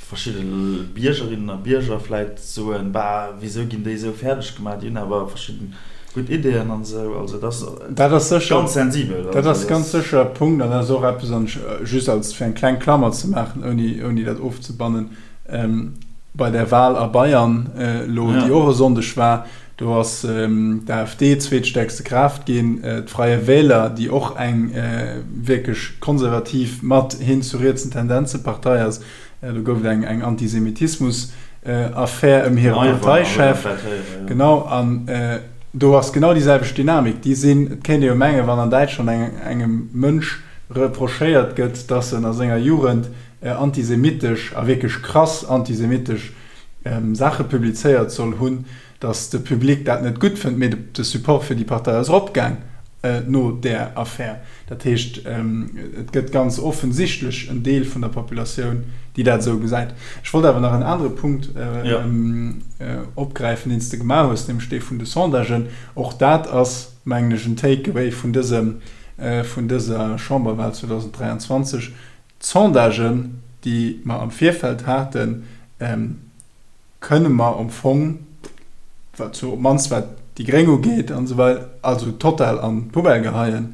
verschidde Biergerinnen a Bierger vläit soen, Bah, wisou ginn déi esou fäerdeg gemaach, déi hunn awer verschidden gutt Ideeën an esou. Also dat ass ganz sensibel. Dat ass ganz sécher e Punkt an dat ass och eppes, an just als fir eng kleng Klammer ze maachen, ouni dat ofzebannen, bei der Wahl a Bayern elo, déi och e Sonndeg war, do ass d'AfD zweetstäerkste Kraaft ginn, d'Freie Wähler, déi och eng wierklech konservativ mat hin zu rietsen Tendenze Partei ass, do gouf et eng Antisemitismus-Affär ëm hire Parteichef. Genau, an do ass genau déi selwecht Dynamik. Déi sinn, et kéint ee jo mengen, wann an Däitschland engem Mënsch reprochéiert gëtt, datt en a senger Jugend antisemitesch a wierklech krass antisemitesch Saache publizéiert soll hunn, datt de Public dat net gutt fënnt, mee de Support fir déi Partei ass eropgaang no där Affär. Dat heescht, et gëtt ganz offensichtlech en Deel vun der Populatioun, déi dat esou gesäit. Ech wollt awer nach en anere Punkt opgräifen, deen s de gemaach hues, nämlech dee vun de Sondagen. Och dat ass, mengen ech, en Take-away vun dësem, vun dëser Chamberwahl 2023, D'Sondagen, déi mer am Virfeld haten, kënne mer am Fong, wat sou op d'mannst wat déi Gréng ugeet an esou weider, also total an d'Poubelle geheien,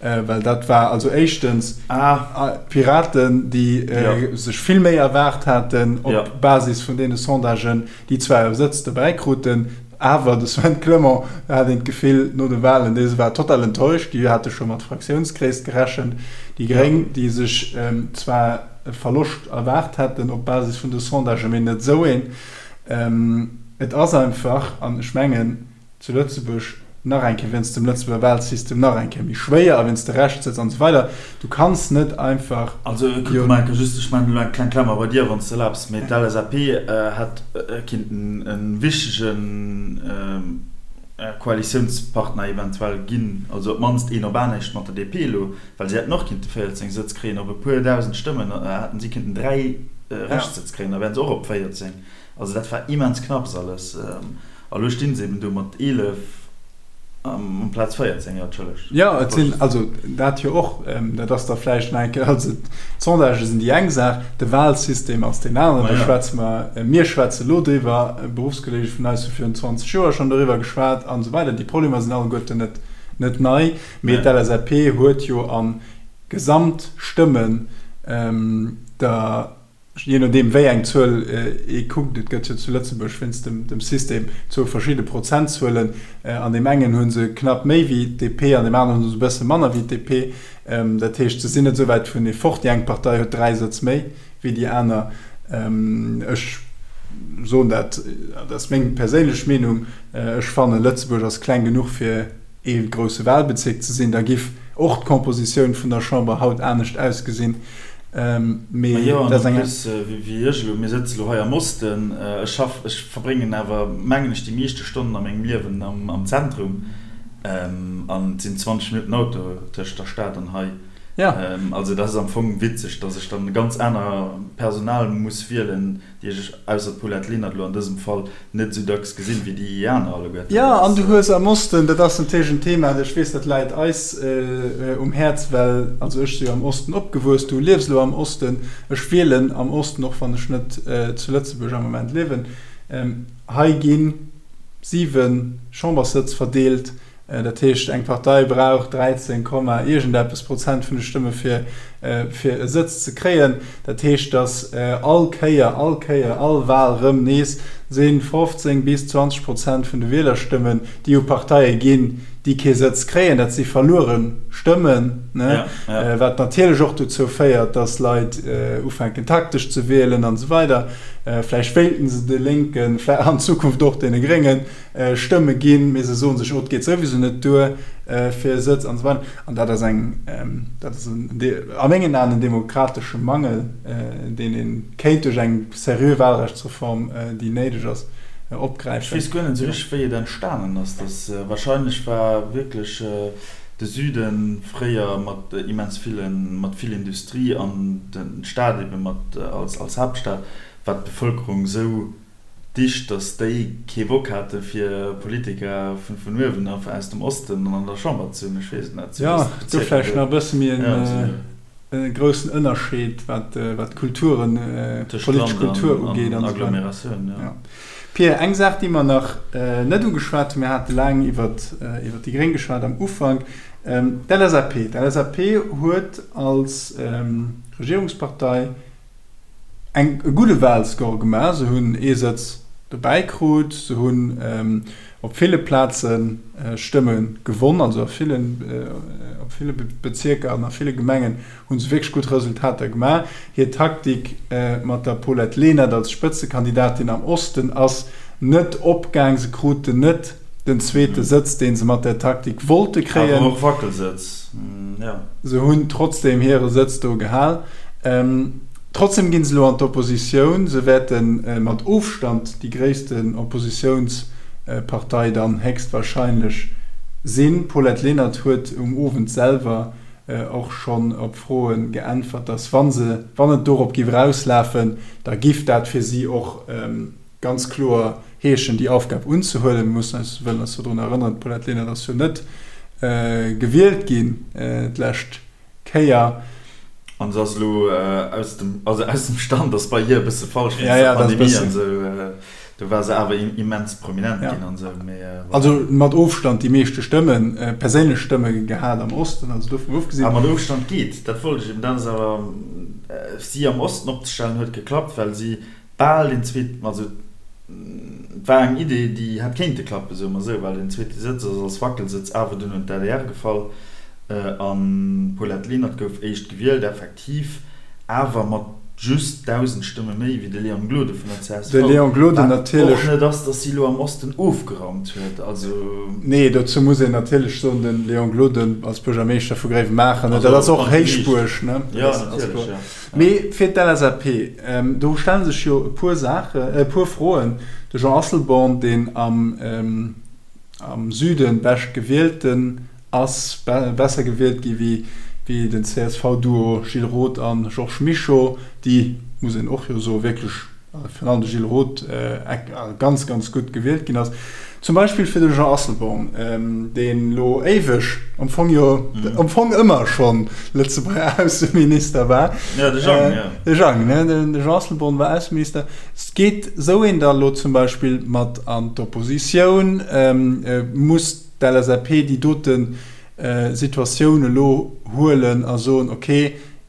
well dat war also éischtens d'Piraten, déi sech vill méi erwaart haten op Basis vun deene Sondagen, déi zwar e Sëtz dobäi kruten, awer de Sven Clement, do hat een d'Gefill no de Wahlen, dee war total enttäuscht, déi hate scho mat Fraktiounsgréisst gerechent. Déi Gréng, déi sech zwar e Verloscht erwaart hätten op Basis vun de Sondagen, mee net esou een. Et ass einfach, an ech mengen, zu Lëtzebuerg nach eng Kéier wéinst dem Lëtzebuerger Wahlsystem nach eng Kéier méi schwéier a wéinst de Rechtssëtz an esou weider, du kanns net einfach. Also kuck Michael, just, ech maachen elo eng kleng Klammer bei dir, wann s de erlaabs, mee d'LSAP hätt kinnten e wichtege Koalitiounspartner eventuell ginn, also op d'mannst een op anescht mat der DP elo, well si hätten och kinnte 14 Sëtz kréien, op e puer dausend Stëmmen hätten si kinnten 3 Rechtssëtz kréien, da wären se och op 14. Also dat war immens knapps alles. A lo stinn se eben do mat 11 amplaz 14, jo, entschëllegt. Jo, et sinn, also dat jo och, dat ass da vläicht nach eng Kéier, also d'Sondagë sinn déi eng Saach, de Wahlsystem ass deen aneren, do schwätze mer, mir schwätze lo driwwer, Beruffskolleege vun eis hu virun 20 Joer schonn doriwwer geschwat an esou weider. Déi Problemer sinn alleguerten net, net nei, mee d'LSAP huet jo a Gesamtstëmmen der, Jee nodeem wéi eng Zuel ee kuckt, et gëtt jo zu Lëtzebuerg wéinst dem System zwou verschidde Prozentzuelen, an deem engen hu se knapp méi wéi d'DP, an deem aneren hu se e bësse manner wéi d'DP. Dat heescht, se sinn net esou wäit vunee fort. Déi eng Partei huet 3 Sëtz méi wéi déi aner. Ech soen dat, dat ass meng perséinlech Meenung, ech fannen, Lëtzebuerg ass kleng genuch fir ee grousse Wahlbezierk ze sinn, da giff och d'Kompositioun vun der Chamber haut anescht ausgesinn. Mee Majo, an en plus, wéi ech elo, mir sëtze lo hei am Osten, ech schaff, ech verbréngen awer, mengen ech, déi meeschte Stonnen a mengem Liewen am Zentrum, an et sinn 20 Minutten Auto tëscht der Stad an hei. Also dat ass am Fong witzeg, datt ech dann ganz aner Personal muss wielen, déi ech, ausser d'Paulette Lenert elo an dësem Fall, net esou dacks gesinn, wéi déi aner alleguerten. Jo, an du hues am Osten, dat ass natierlech en Thema, ech weess, dat läit eis um Häerz, well, also ech si jo am Osten opgewuess, du liefs elo am Osten, ech wielen am Osten, och wann ech net zu Lëtzebuerg am Moment liewen. Hei gi 7 Chamberssëtz verdeelt. Dat heescht, eng Partei brauch 13 Komma iergendeppes Prozent vun de Stëmme fir fir e Sëtz ze kréien. Dat heescht, datt all Kéier, all Kéier, all Wal rëm nees si 15 bis 20 Prozent vun de Wielerstëmmen, déi u Parteie ginn, déi kee Sëtz kréien. Dat si verluere Stëmmen, wat natierlech och dozou féiert, datt Leit ufänken taktesch ze wielen an esou weider. Vläicht wéilten se de Lénken, an Zukunft och deene Gréngen, Stëmme ginn, mee se soen sech, oh, et geet souwisou net duer fir e Sëtz an esou weider. An dat ass eng, dat ass en, a mengen Aen en demokratesche Mangel, deen ee kéint duerch eng seriö Wahlrechtsreform, déi néideg ass, opgräifen. Ech weess guer net esou richteg, wéi et entstanen ass. Dass wahrscheinlech war wierklech de Süde fréier mat immens villen, mat vill Industrie an d'Stad ebe mat als Haaptstad, war d'Bevëlkerung esou. Dicht, datt déi kee Bock hate fir Politiker vun vun uewen a aus dem Osten an der Chamber ze hunn. Ech weess et net. Jo, do vläicht nach e bësse méi en groussen Ënnerscheed wat wat d'Kulturen, d'politesch Kultur ugeet an esou weider. Pir, eng Saach déi mer nach net ugeschwat hunn, mir hate laang iwwert iwwert déi Gréng geschwat am Ufank, d'LSAP. D'LSAP huet als Regierungspartei eng e gudde Wahlscore gemaach. Se hunn ee Sëtz dobäi krut, se hunn op ville Plaze Stëmme gewonn, also a villen, op ville Bezierker an a ville Gemengen hu se wierklech gutt Resultater gemaach. Hir Taktik mat der Paulette Lenert als Spëtzekandidatin am Osten ass net opgaang. Se kruten net den zweete Sëtz, dee se mat där Taktik wollte kréien. Awer och Wackelsëtz, jo. Se hunn trotzdeem hire Sëtz do gehal. Trotzdeem ginn se elo an d'Oppositioun. Se wäerte mat Ofstand déi gréissten Oppositiounspartei dann héchstwahrscheinlech sinn. D'Paulette Lenert huet um Owend selwer och schonn op Froe geäntwert, datt wa se, wann et dorop giff erauslafen, da giff dat fir si och ganz kloer heeschen, déi Aufgab unzehuelen. Mir mussen eis, wëllen eis do drun erënneren, d'Paulette Lenert ass jo net gewielt ginn d'lescht Kéier. An se ass elo aus dem, also aus dem Stand ass bei hir e bësse falsch wéinst der Pandemie an esou. Do war se awer immens prominent ginn an esou, mee voilà. Also mat Ofstand déi meeschte Stëmmen, perséinlech Stëmme gehat am Osten, also dovun ofgesinn. A mat Ofstand geet, dat wollt ech eben, dat ass awer, si am Osten opzestellen huet geklappt, well si bal den zweeten, also et war eng Idee, déi hätt kéinte klappen, soe mer esou, well den zweete Sëtz ass als Wackelsëtz awer dunn un d'ADR gefall an d'Paulette Lenert gouf éischt gewielt, effektiv awer mat just 1.000 Stëmme méi wéi de Léon Gloden vun der csv, De Léon Gloden wat och net ass, datt si elo am Osten ofgeraumt huet, also. Nee, dozou muss een natierlech soen, de Léon Gloden als Buergermeeschter vu Gréiwemaacher, dat ass och Héichbuerg, ne? Jo, natierlech, jo. Mee fir d'LSAP, do stelle sech jo e puer Saachen, e puer Froen. De Jean Asselborn, deen am Süde bescht gewielten ass, besser gewielt gi wéi den CSV-Duo Gilles Roth a Georges Mischo, déi, muss een och jo soen, wierklech virun allem de Gilles Roth, ganz, ganz gutt gewielt ginn ass. Zum Beispill fir de Jean Asselborn, deen elo éiweg, am Fong jo, am Fong ëmmer schonn Lëtzebuerger Ausseminister war. Jo, de Jang, jo. De Jang, ne? De Jean Asselborn war Ausseminister. Geet esou een da elo zum Beispill mat an d'Oppositioun? Muss d'LSAP déi dote Situatioun elo huelen a soen, ok,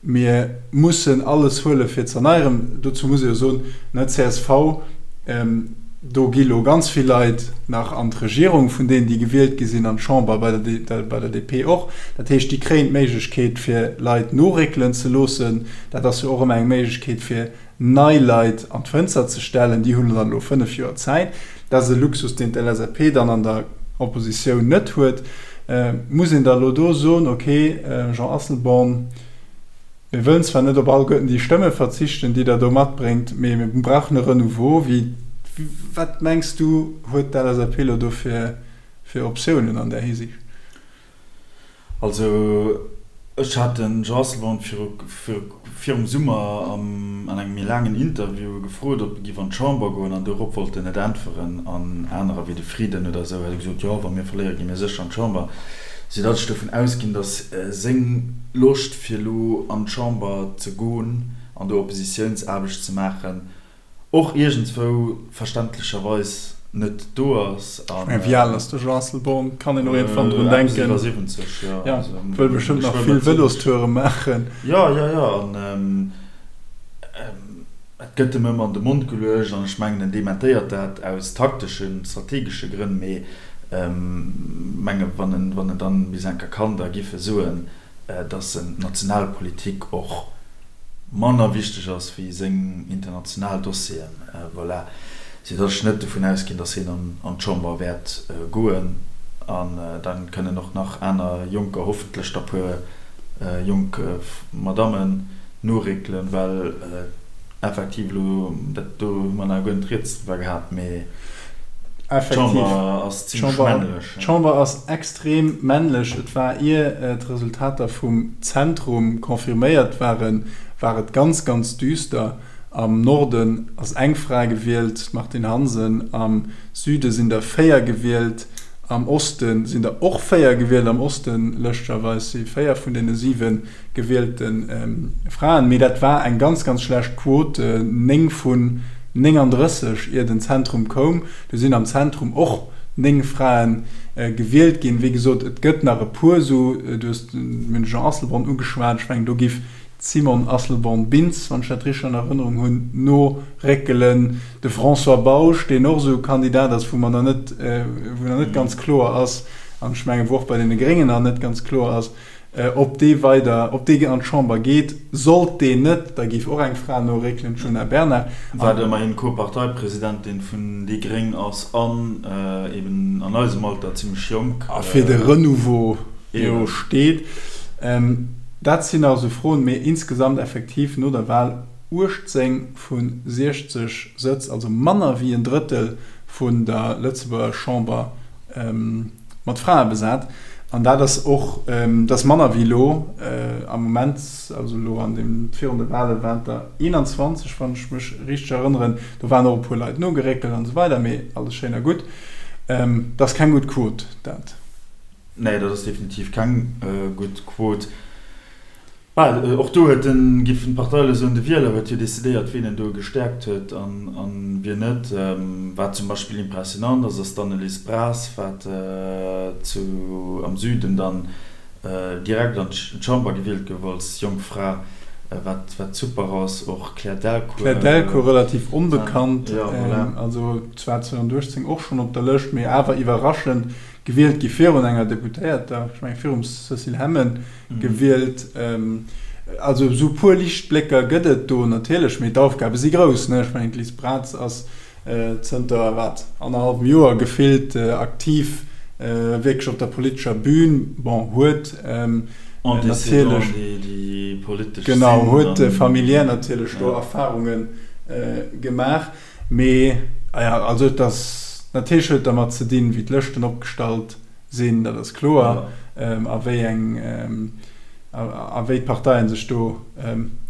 mir mussen alles huele fir ze erneieren. Dozou muss ee jo soen, ne, csv, do gi lo ganz vill Leit nach an d'Regierung vun deenen, déi gewielt gi sinn, an d'Chamber, bei der bei der DP och. Dat heescht, déi kréien d'Méiglechkeet fir Leit noréckelen ze loossen. Dat ass jo och ëmmer eng Méiglechkeet fir nei Leit an d'Fënster ze stellen, déi hunn dann elo 5 Joer Zäit. Dat ass e Luxus, deen d'LSAP dann an der Oppositioun net huet. Muss een da elo do soen, ok, Jean Asselborn, mir wëllen zwar net op alleguerten déi Stëmme verzichten, déi Der do matbréngt, mee mir brauchen e Renouveau. Wéi, wat mengs du, huet d'LSAP elo do fir Optiounen an där Hisiicht? Also ech hat den Jean Asselborn virum Summer an engem méi laangen Interview gefrot, ob e giff an d'Chamber goen an dorop wollt en net äntweren. An anerer wéi de Frieden oder esou hätte gesot, jo wa mir verléiere gi mir sécher an d'Chamber. Soudatt ech dovun ausginn, datt seng Loscht fir elo an d'Chamber ze goen an do Oppositiounsaarbecht ze maachen, och iergendswou verständlecherweis net do ass. Ech mengen, wéi al ass de Jean Asselborn? Kann een och iergendwann drun denken. Eppes iwwer 70, jo. Ja, wëll bestëmmt nach vill Vëlostoure maachen. Jo, jo, jo. An et gëtt em ëmmer an de Mond geluecht an ech mengen, en dementéiert dat aus takteschen, strategesche Grënn, mee menge wann en, wann en dann bis eng Kéier kann, da giff e soen, dass en d'Nationalpolitik och manner wichteg ass wéi seng international Dossieren. Voilà. Sou dass ech net dovun ausginn, dass hien an d'Chamber wäert goen. An da kënnen och nach aner Jonker, hoffentlech da puer jonk Madammen noréckelen, well Effektiv elo, dat do hu mer nach guer net rieds driwwer gehat, mee d'Chamber ass zimlech männlech. D'Chamber ass extrem männlech. Et war, ier d'Resultater vum Zentrum confirméiert waren, war et ganz, ganz düster. Am Norden ass eng Fra gewielt, d'Martine Hansen. Am Süde sinn der 4 gewielt. Am Oste sinn der och 4 gewielt. Am Osten, lëschtegerweis, si 4 vun deene 7 gewielte Fraen. Mee dat war eng ganz, ganz schlecht Quot, 9 vun 39, ier den Zentrum koum. Du sinn am Zentrum och 9 Frae gewielt ginn. Wéi gesot, et gëtt nach e puer esou, du hues de Jean Asselborn ugeschwat, ech mengen do giff d'Simone Asselborn-Bintz, wann ech dat richteg an Erënnerung hunn, noréckelen. De François Bausch, deen och esou e Kandidat ass, wou mer nach net, wou nach net ganz kloer ass, an ech mengen, wou och bei deene Gréngen nach net ganz kloer ass, Ob dee weider, ob dee an d'Chamber geet. Sollt deen net, da géif och eng Fra noréckelen, d'Djuna Bernard. Wat ëmmerhin Co-Parteipresidentin vun déi gréng ass an eben an eisem Alter zimmlech jonk. A fir de Renouveau jo steet. Dat sinn nach esou Froen, mee insgesamt effektiv no der Wahl 18 vu 60 Sëtz, also manner wéi en Drëttel vun der Lëtzebuerger Chamber. Mat Frae besat. An dat ass och, dat ass manner wéi elo am Moment, also elo an deem, virun de Wale waren et der 21, wann ech mech richteg erënneren. Do waren och e puer Leit nogeréckelt an esou weider, mee alles schéin a gutt. Dat ass keng gutt Quot, dat. Nee, dat ass definitiv keng gutt Quot. Well och do huet den, giffen d'Partei elo soen, de Wieler huet jo decidéiert, wien en do gestäerkt huet an wien net. Wat zum Beispill impressionant ass, ass d'Annelise Bras, wat zu am Süden dann direkt an d'Chamber gewielt gouf als jonk Fra, wat wat super ass. Och Claire Delcourt. Claire Delcourt relativ onbekannt, also zwar 2018 och schonn op der Lëscht, mee awer iwwerraschend gewielt gi virun enger Deputéierter, ech mengen virum Cécile Hemmen gewielt. Also esou e puer Liichtblécker gëtt et do natierlech, mee d'Aufgabe si grouss. Ech mengen d'Liz Braz ass zënter wat, annerhallwem Joer gefillt aktiv wierklech op der politescher Bühn. Bon, huet natierlech, genau, huet familiär natierlech do Erfarunge gemaach. Mee, ah ja, also et ass, natierlech huet et dermat ze dinn, wéi d'Lëschten opgestallt sinn, dat ass kloer, a wéi eng, a wéi d'Parteien sech do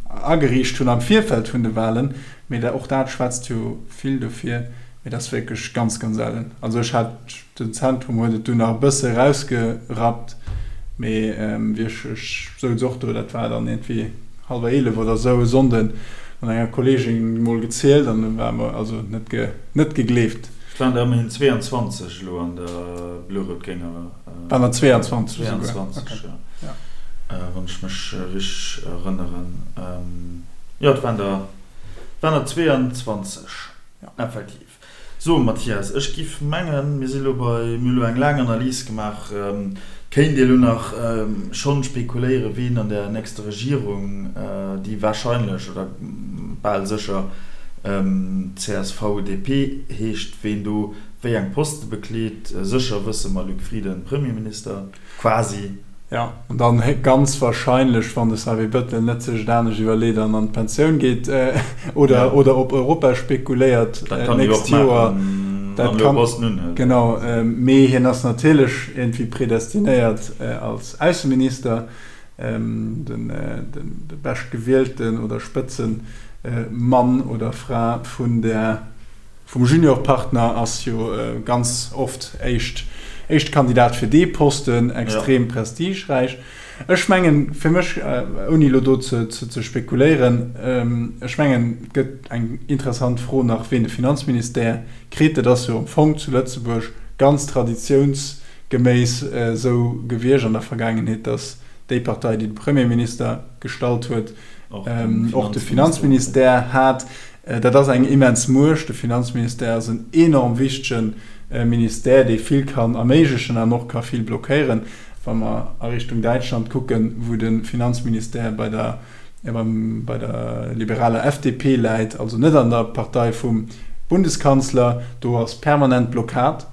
ageriicht hunn am Virfeld vun de Wahlen. Mee och dat schwätzt jo vill dofir. Mee dat ass wierklech ganz, ganz ellen. Also ech hat. Den Zentrum huet et dunn nach e bësse erausgerappt, mee wéi ech, ech souz och do, dat war dann iergendwéi hallwer 11 oder esou e Sonnden, mat enger Kolleegin mol gezielt an du war mer also net ge, net gegleeft. Et waren der ëmmerhin 22 elo an der blo-rout-grénger. Waren der 22 esouguer? 22, jo, wann ech mech richteg erënneren. Jo, et waren der, et waren der 22, effektiv. So, Mathias, ech giff mengen, mir si lo bei, mir hu lo eng laang Analys gemaach. Et kéint ee lo nach schonn spekuléieren, ween an der nächster Regierung, déi wahrscheinlech oder bal sécher CSV-DP heescht, ween do wéi eng Poste bekleet. Sécher wësse mer, Luc Frieden, Premierminister. Quasi. Jo, an dann ganz wahrscheinlech, wann de Xavier Bettel net sech et anescht iwwerleet an an d'Pensioun geet oder oder op Europa spekuléiert d'nächst Joer. Dat kann en jo och maachen. Genau, mee hien ass natierlech iergendwéi predestinéiert als Ausseminister, de beschtgewielten oder Spëtzemann oder Fra vun der. Vum Juniorpartner ass jo ganz oft éischt éischte Kandidat fir dee Posten, extrem prestigeräich. Ech mengen, fir mech, ouni elo do ze ze spekuléieren, ech mengen, et gëtt eng interessant Fro nach, ween de Finanzministère kritt. Dat ass jo am Fong zu Lëtzebuerg ganz traditiounsgeméiss esou gewiescht an der Vergaangenheet, datt déi Partei, déi de Premierminister gestallt huet, och de Finanzministère hat. Dat ass eng immens Muecht. De Finanzministère ass en enorm wichtege Ministère, dee vill kann erméiglechen an och ka vill blockéieren. Wa mer a Richtung Däitschland kucken, wou de Finanzministère bei der, bei der liberaler FDP läit, also net an der Partei vum Bundeskanzler, do ass permanent Blockad.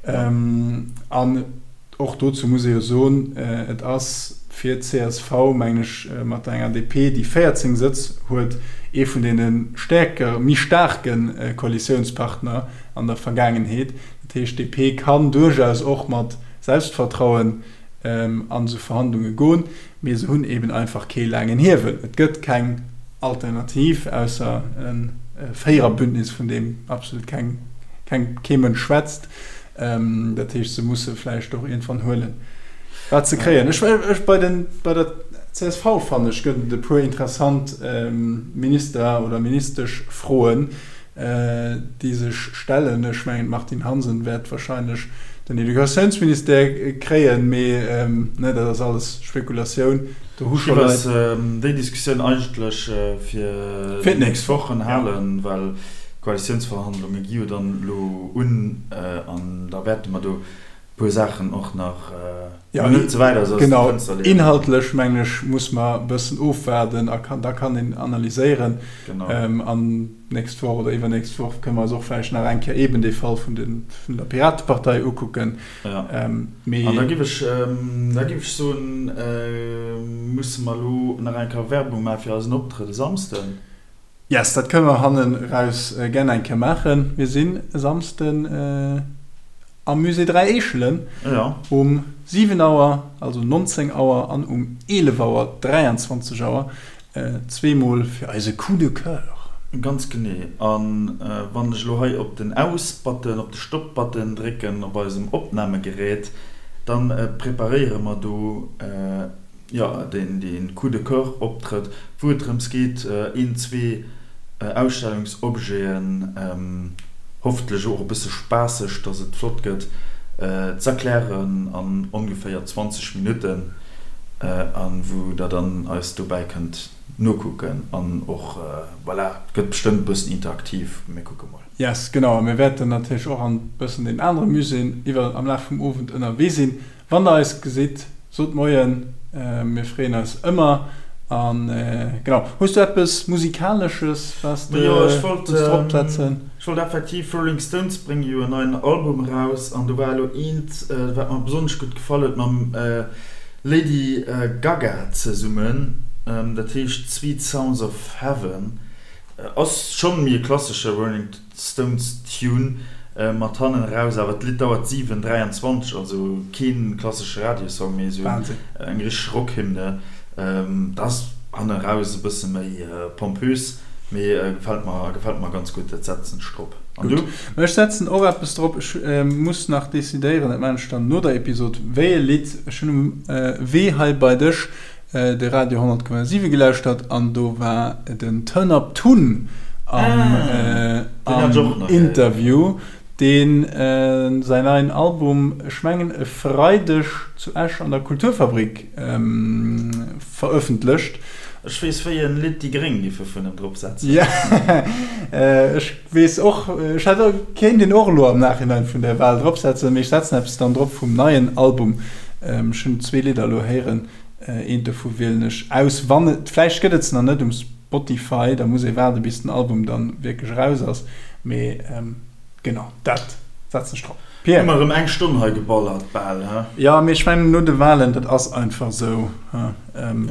An Och dozou muss ee jo soen, et ass fir d'CSV, mengen ech, mat enger DP, déi 14 Sëtz huet, ee vun deene stäerker, méi staarke Koalitiounspartner an der Vergaangenheet. Dat heescht, d'DP kann duerchaus och mat Selbstvertrauen an esou Verhandlunge goen, mee se hunn eeben einfach kee laangen Hiewel. Et gëtt keng. Alternativ, ausser e Véiererbündnis, vun deem absolut keng, keng, kee Mënsch schwätzt. Dat heescht, se musse vläicht och iergendwann huelen, wat se kréien. Ech, ech, bei den, bei der csv, fannen ech, gëtt et e puer interessant Minister oder Ministeschfroen, déi sech stellen. Ech mengen, d'Martine Hansen wäert wahrscheinlech den Educatiounsministère kréien, mee, ne, dat ass alles Spekulatioun. Do hu scho Leit. Ech géif déi Diskussioun eigentlech fir déi nächst Wochen halen, well d'Koalitiounsverhandlunge gi jo dann elo un an da wäerte mer do e puer Saachen och nach, jo, net ze wäit aus dem Fënster leeën. Genau, inhaltlech mengen ech, muss mer e bëssen ofwaarden a da kann een analyséieren. An d'nächst Woch oder iwwernächst Woch kënne mer eis och vläicht nach eng Kéier eeben dee Fall vun der Piratepartei ukucken. Mee. An da giff ech, da giff ech soen, musse mer elo nach eng Kéier Werbung maache fir eisen Optrëtt e Samsden. Yes, dat kënne mer hannen eraus gär eng Kéier maachen. Mir sinn e Samsden am Musée 3 Eechelen um 7 Auer, also 19 Auer, an um 11 Auer, 23 Auer, zweemol fir eise Coup de Coeur. Ganz genee. A wann ech elo hei op den Aus-Button, op de Stop-Button drécken op eisem Opnamegerät, da preparéiere mer do, jo, deen Coup de Coeur Optrëtt, wou et drëms geet, een, zwee Ausstellungsobjeten, hoffentlech och e bësse spaasseg, dass et flott gëtt, z'erklären an ongeféier 20 Minutten, a wou der dann eis dobäi kënnt nokucken an och, voilà, et gëtt bestëmmt e bëssen interaktiv, mir kucke mol. Yes, genau, a mir wäerten natierlech och an bëssen den anere Muséeën iwwer am Laf vum Owend ënnerwee sinn. Wann der eis gesitt, sot Moien, mir freeën eis ëmmer. An genau, hues du eppes Musikalesches, wat s de wëlls drop setzen? Ech wollt effektiv, Rolling Stones brénge jo en neien Album eraus an do war elo eent, wat mer besonnesch gutt gefall huet, mam Lady Gaga zesummen, dat heescht Sweet Sounds of Heaven. Ass schonn méi e klassesche Rolling Stones Tune mat hannen eraus, awer d'Lidd dauert 7, 23, also keen klassesche Radiosong, mee esou eng richteg Rockhymne. Dat ass hannen eraus e bësse méi pompös, mee gefält mer, gefält mer ganz gutt. Dat setzen ech drop. An du? Ech setzen och eppes drop. Ech muss nach decidéieren, dat maachen ech dann no der Episod, wéi e Lidd. Ech hunn um Wee hei bei dech de Radio 100,7 gelauschtert an do war den Turn Up Tun am Interview, deen säin neien Album, ech mengen e Freideg zu Esch an der Kulturfabrik verëffentlecht. Ech weess wéi en Lidd déi Gréng giffe vun em drop setzen. Jo, ech weess och, ech hätt och, kéint een och elo am Nachhinein vun der Wahl drop setzen, mee ech setzen eppes dann drop vum neien Album. Ech hunn zwee Lidder elo héieren. Eent dovu wielen ech aus, wann et, vläicht gëtt et se nach net um Spotify, da muss ee waarde bis den Album dann wierklech eraus ass, mee genau dat setzen ech drop. Pierre? Hu mer erëm eng Stonn hei geballert bal, he? Jo, mee ech mengen no de Wahlen, dat ass einfach esou, he,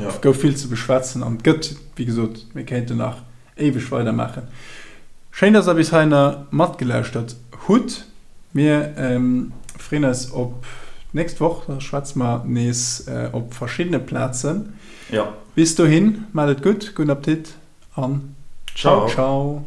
et gouf vill ze beschwätzen an et gëtt, wéi gesot, mir kéinten nach éiweg weidermaachen. Schéin, dass der bis heihinner matgelauschtert hutt. Mir freeën eis op d'nächst Woch, da schwätze mer nees op verschiddene Plazen. Jo. Bis dohin, maacht et gutt, gudden Appetit an ciao ciao.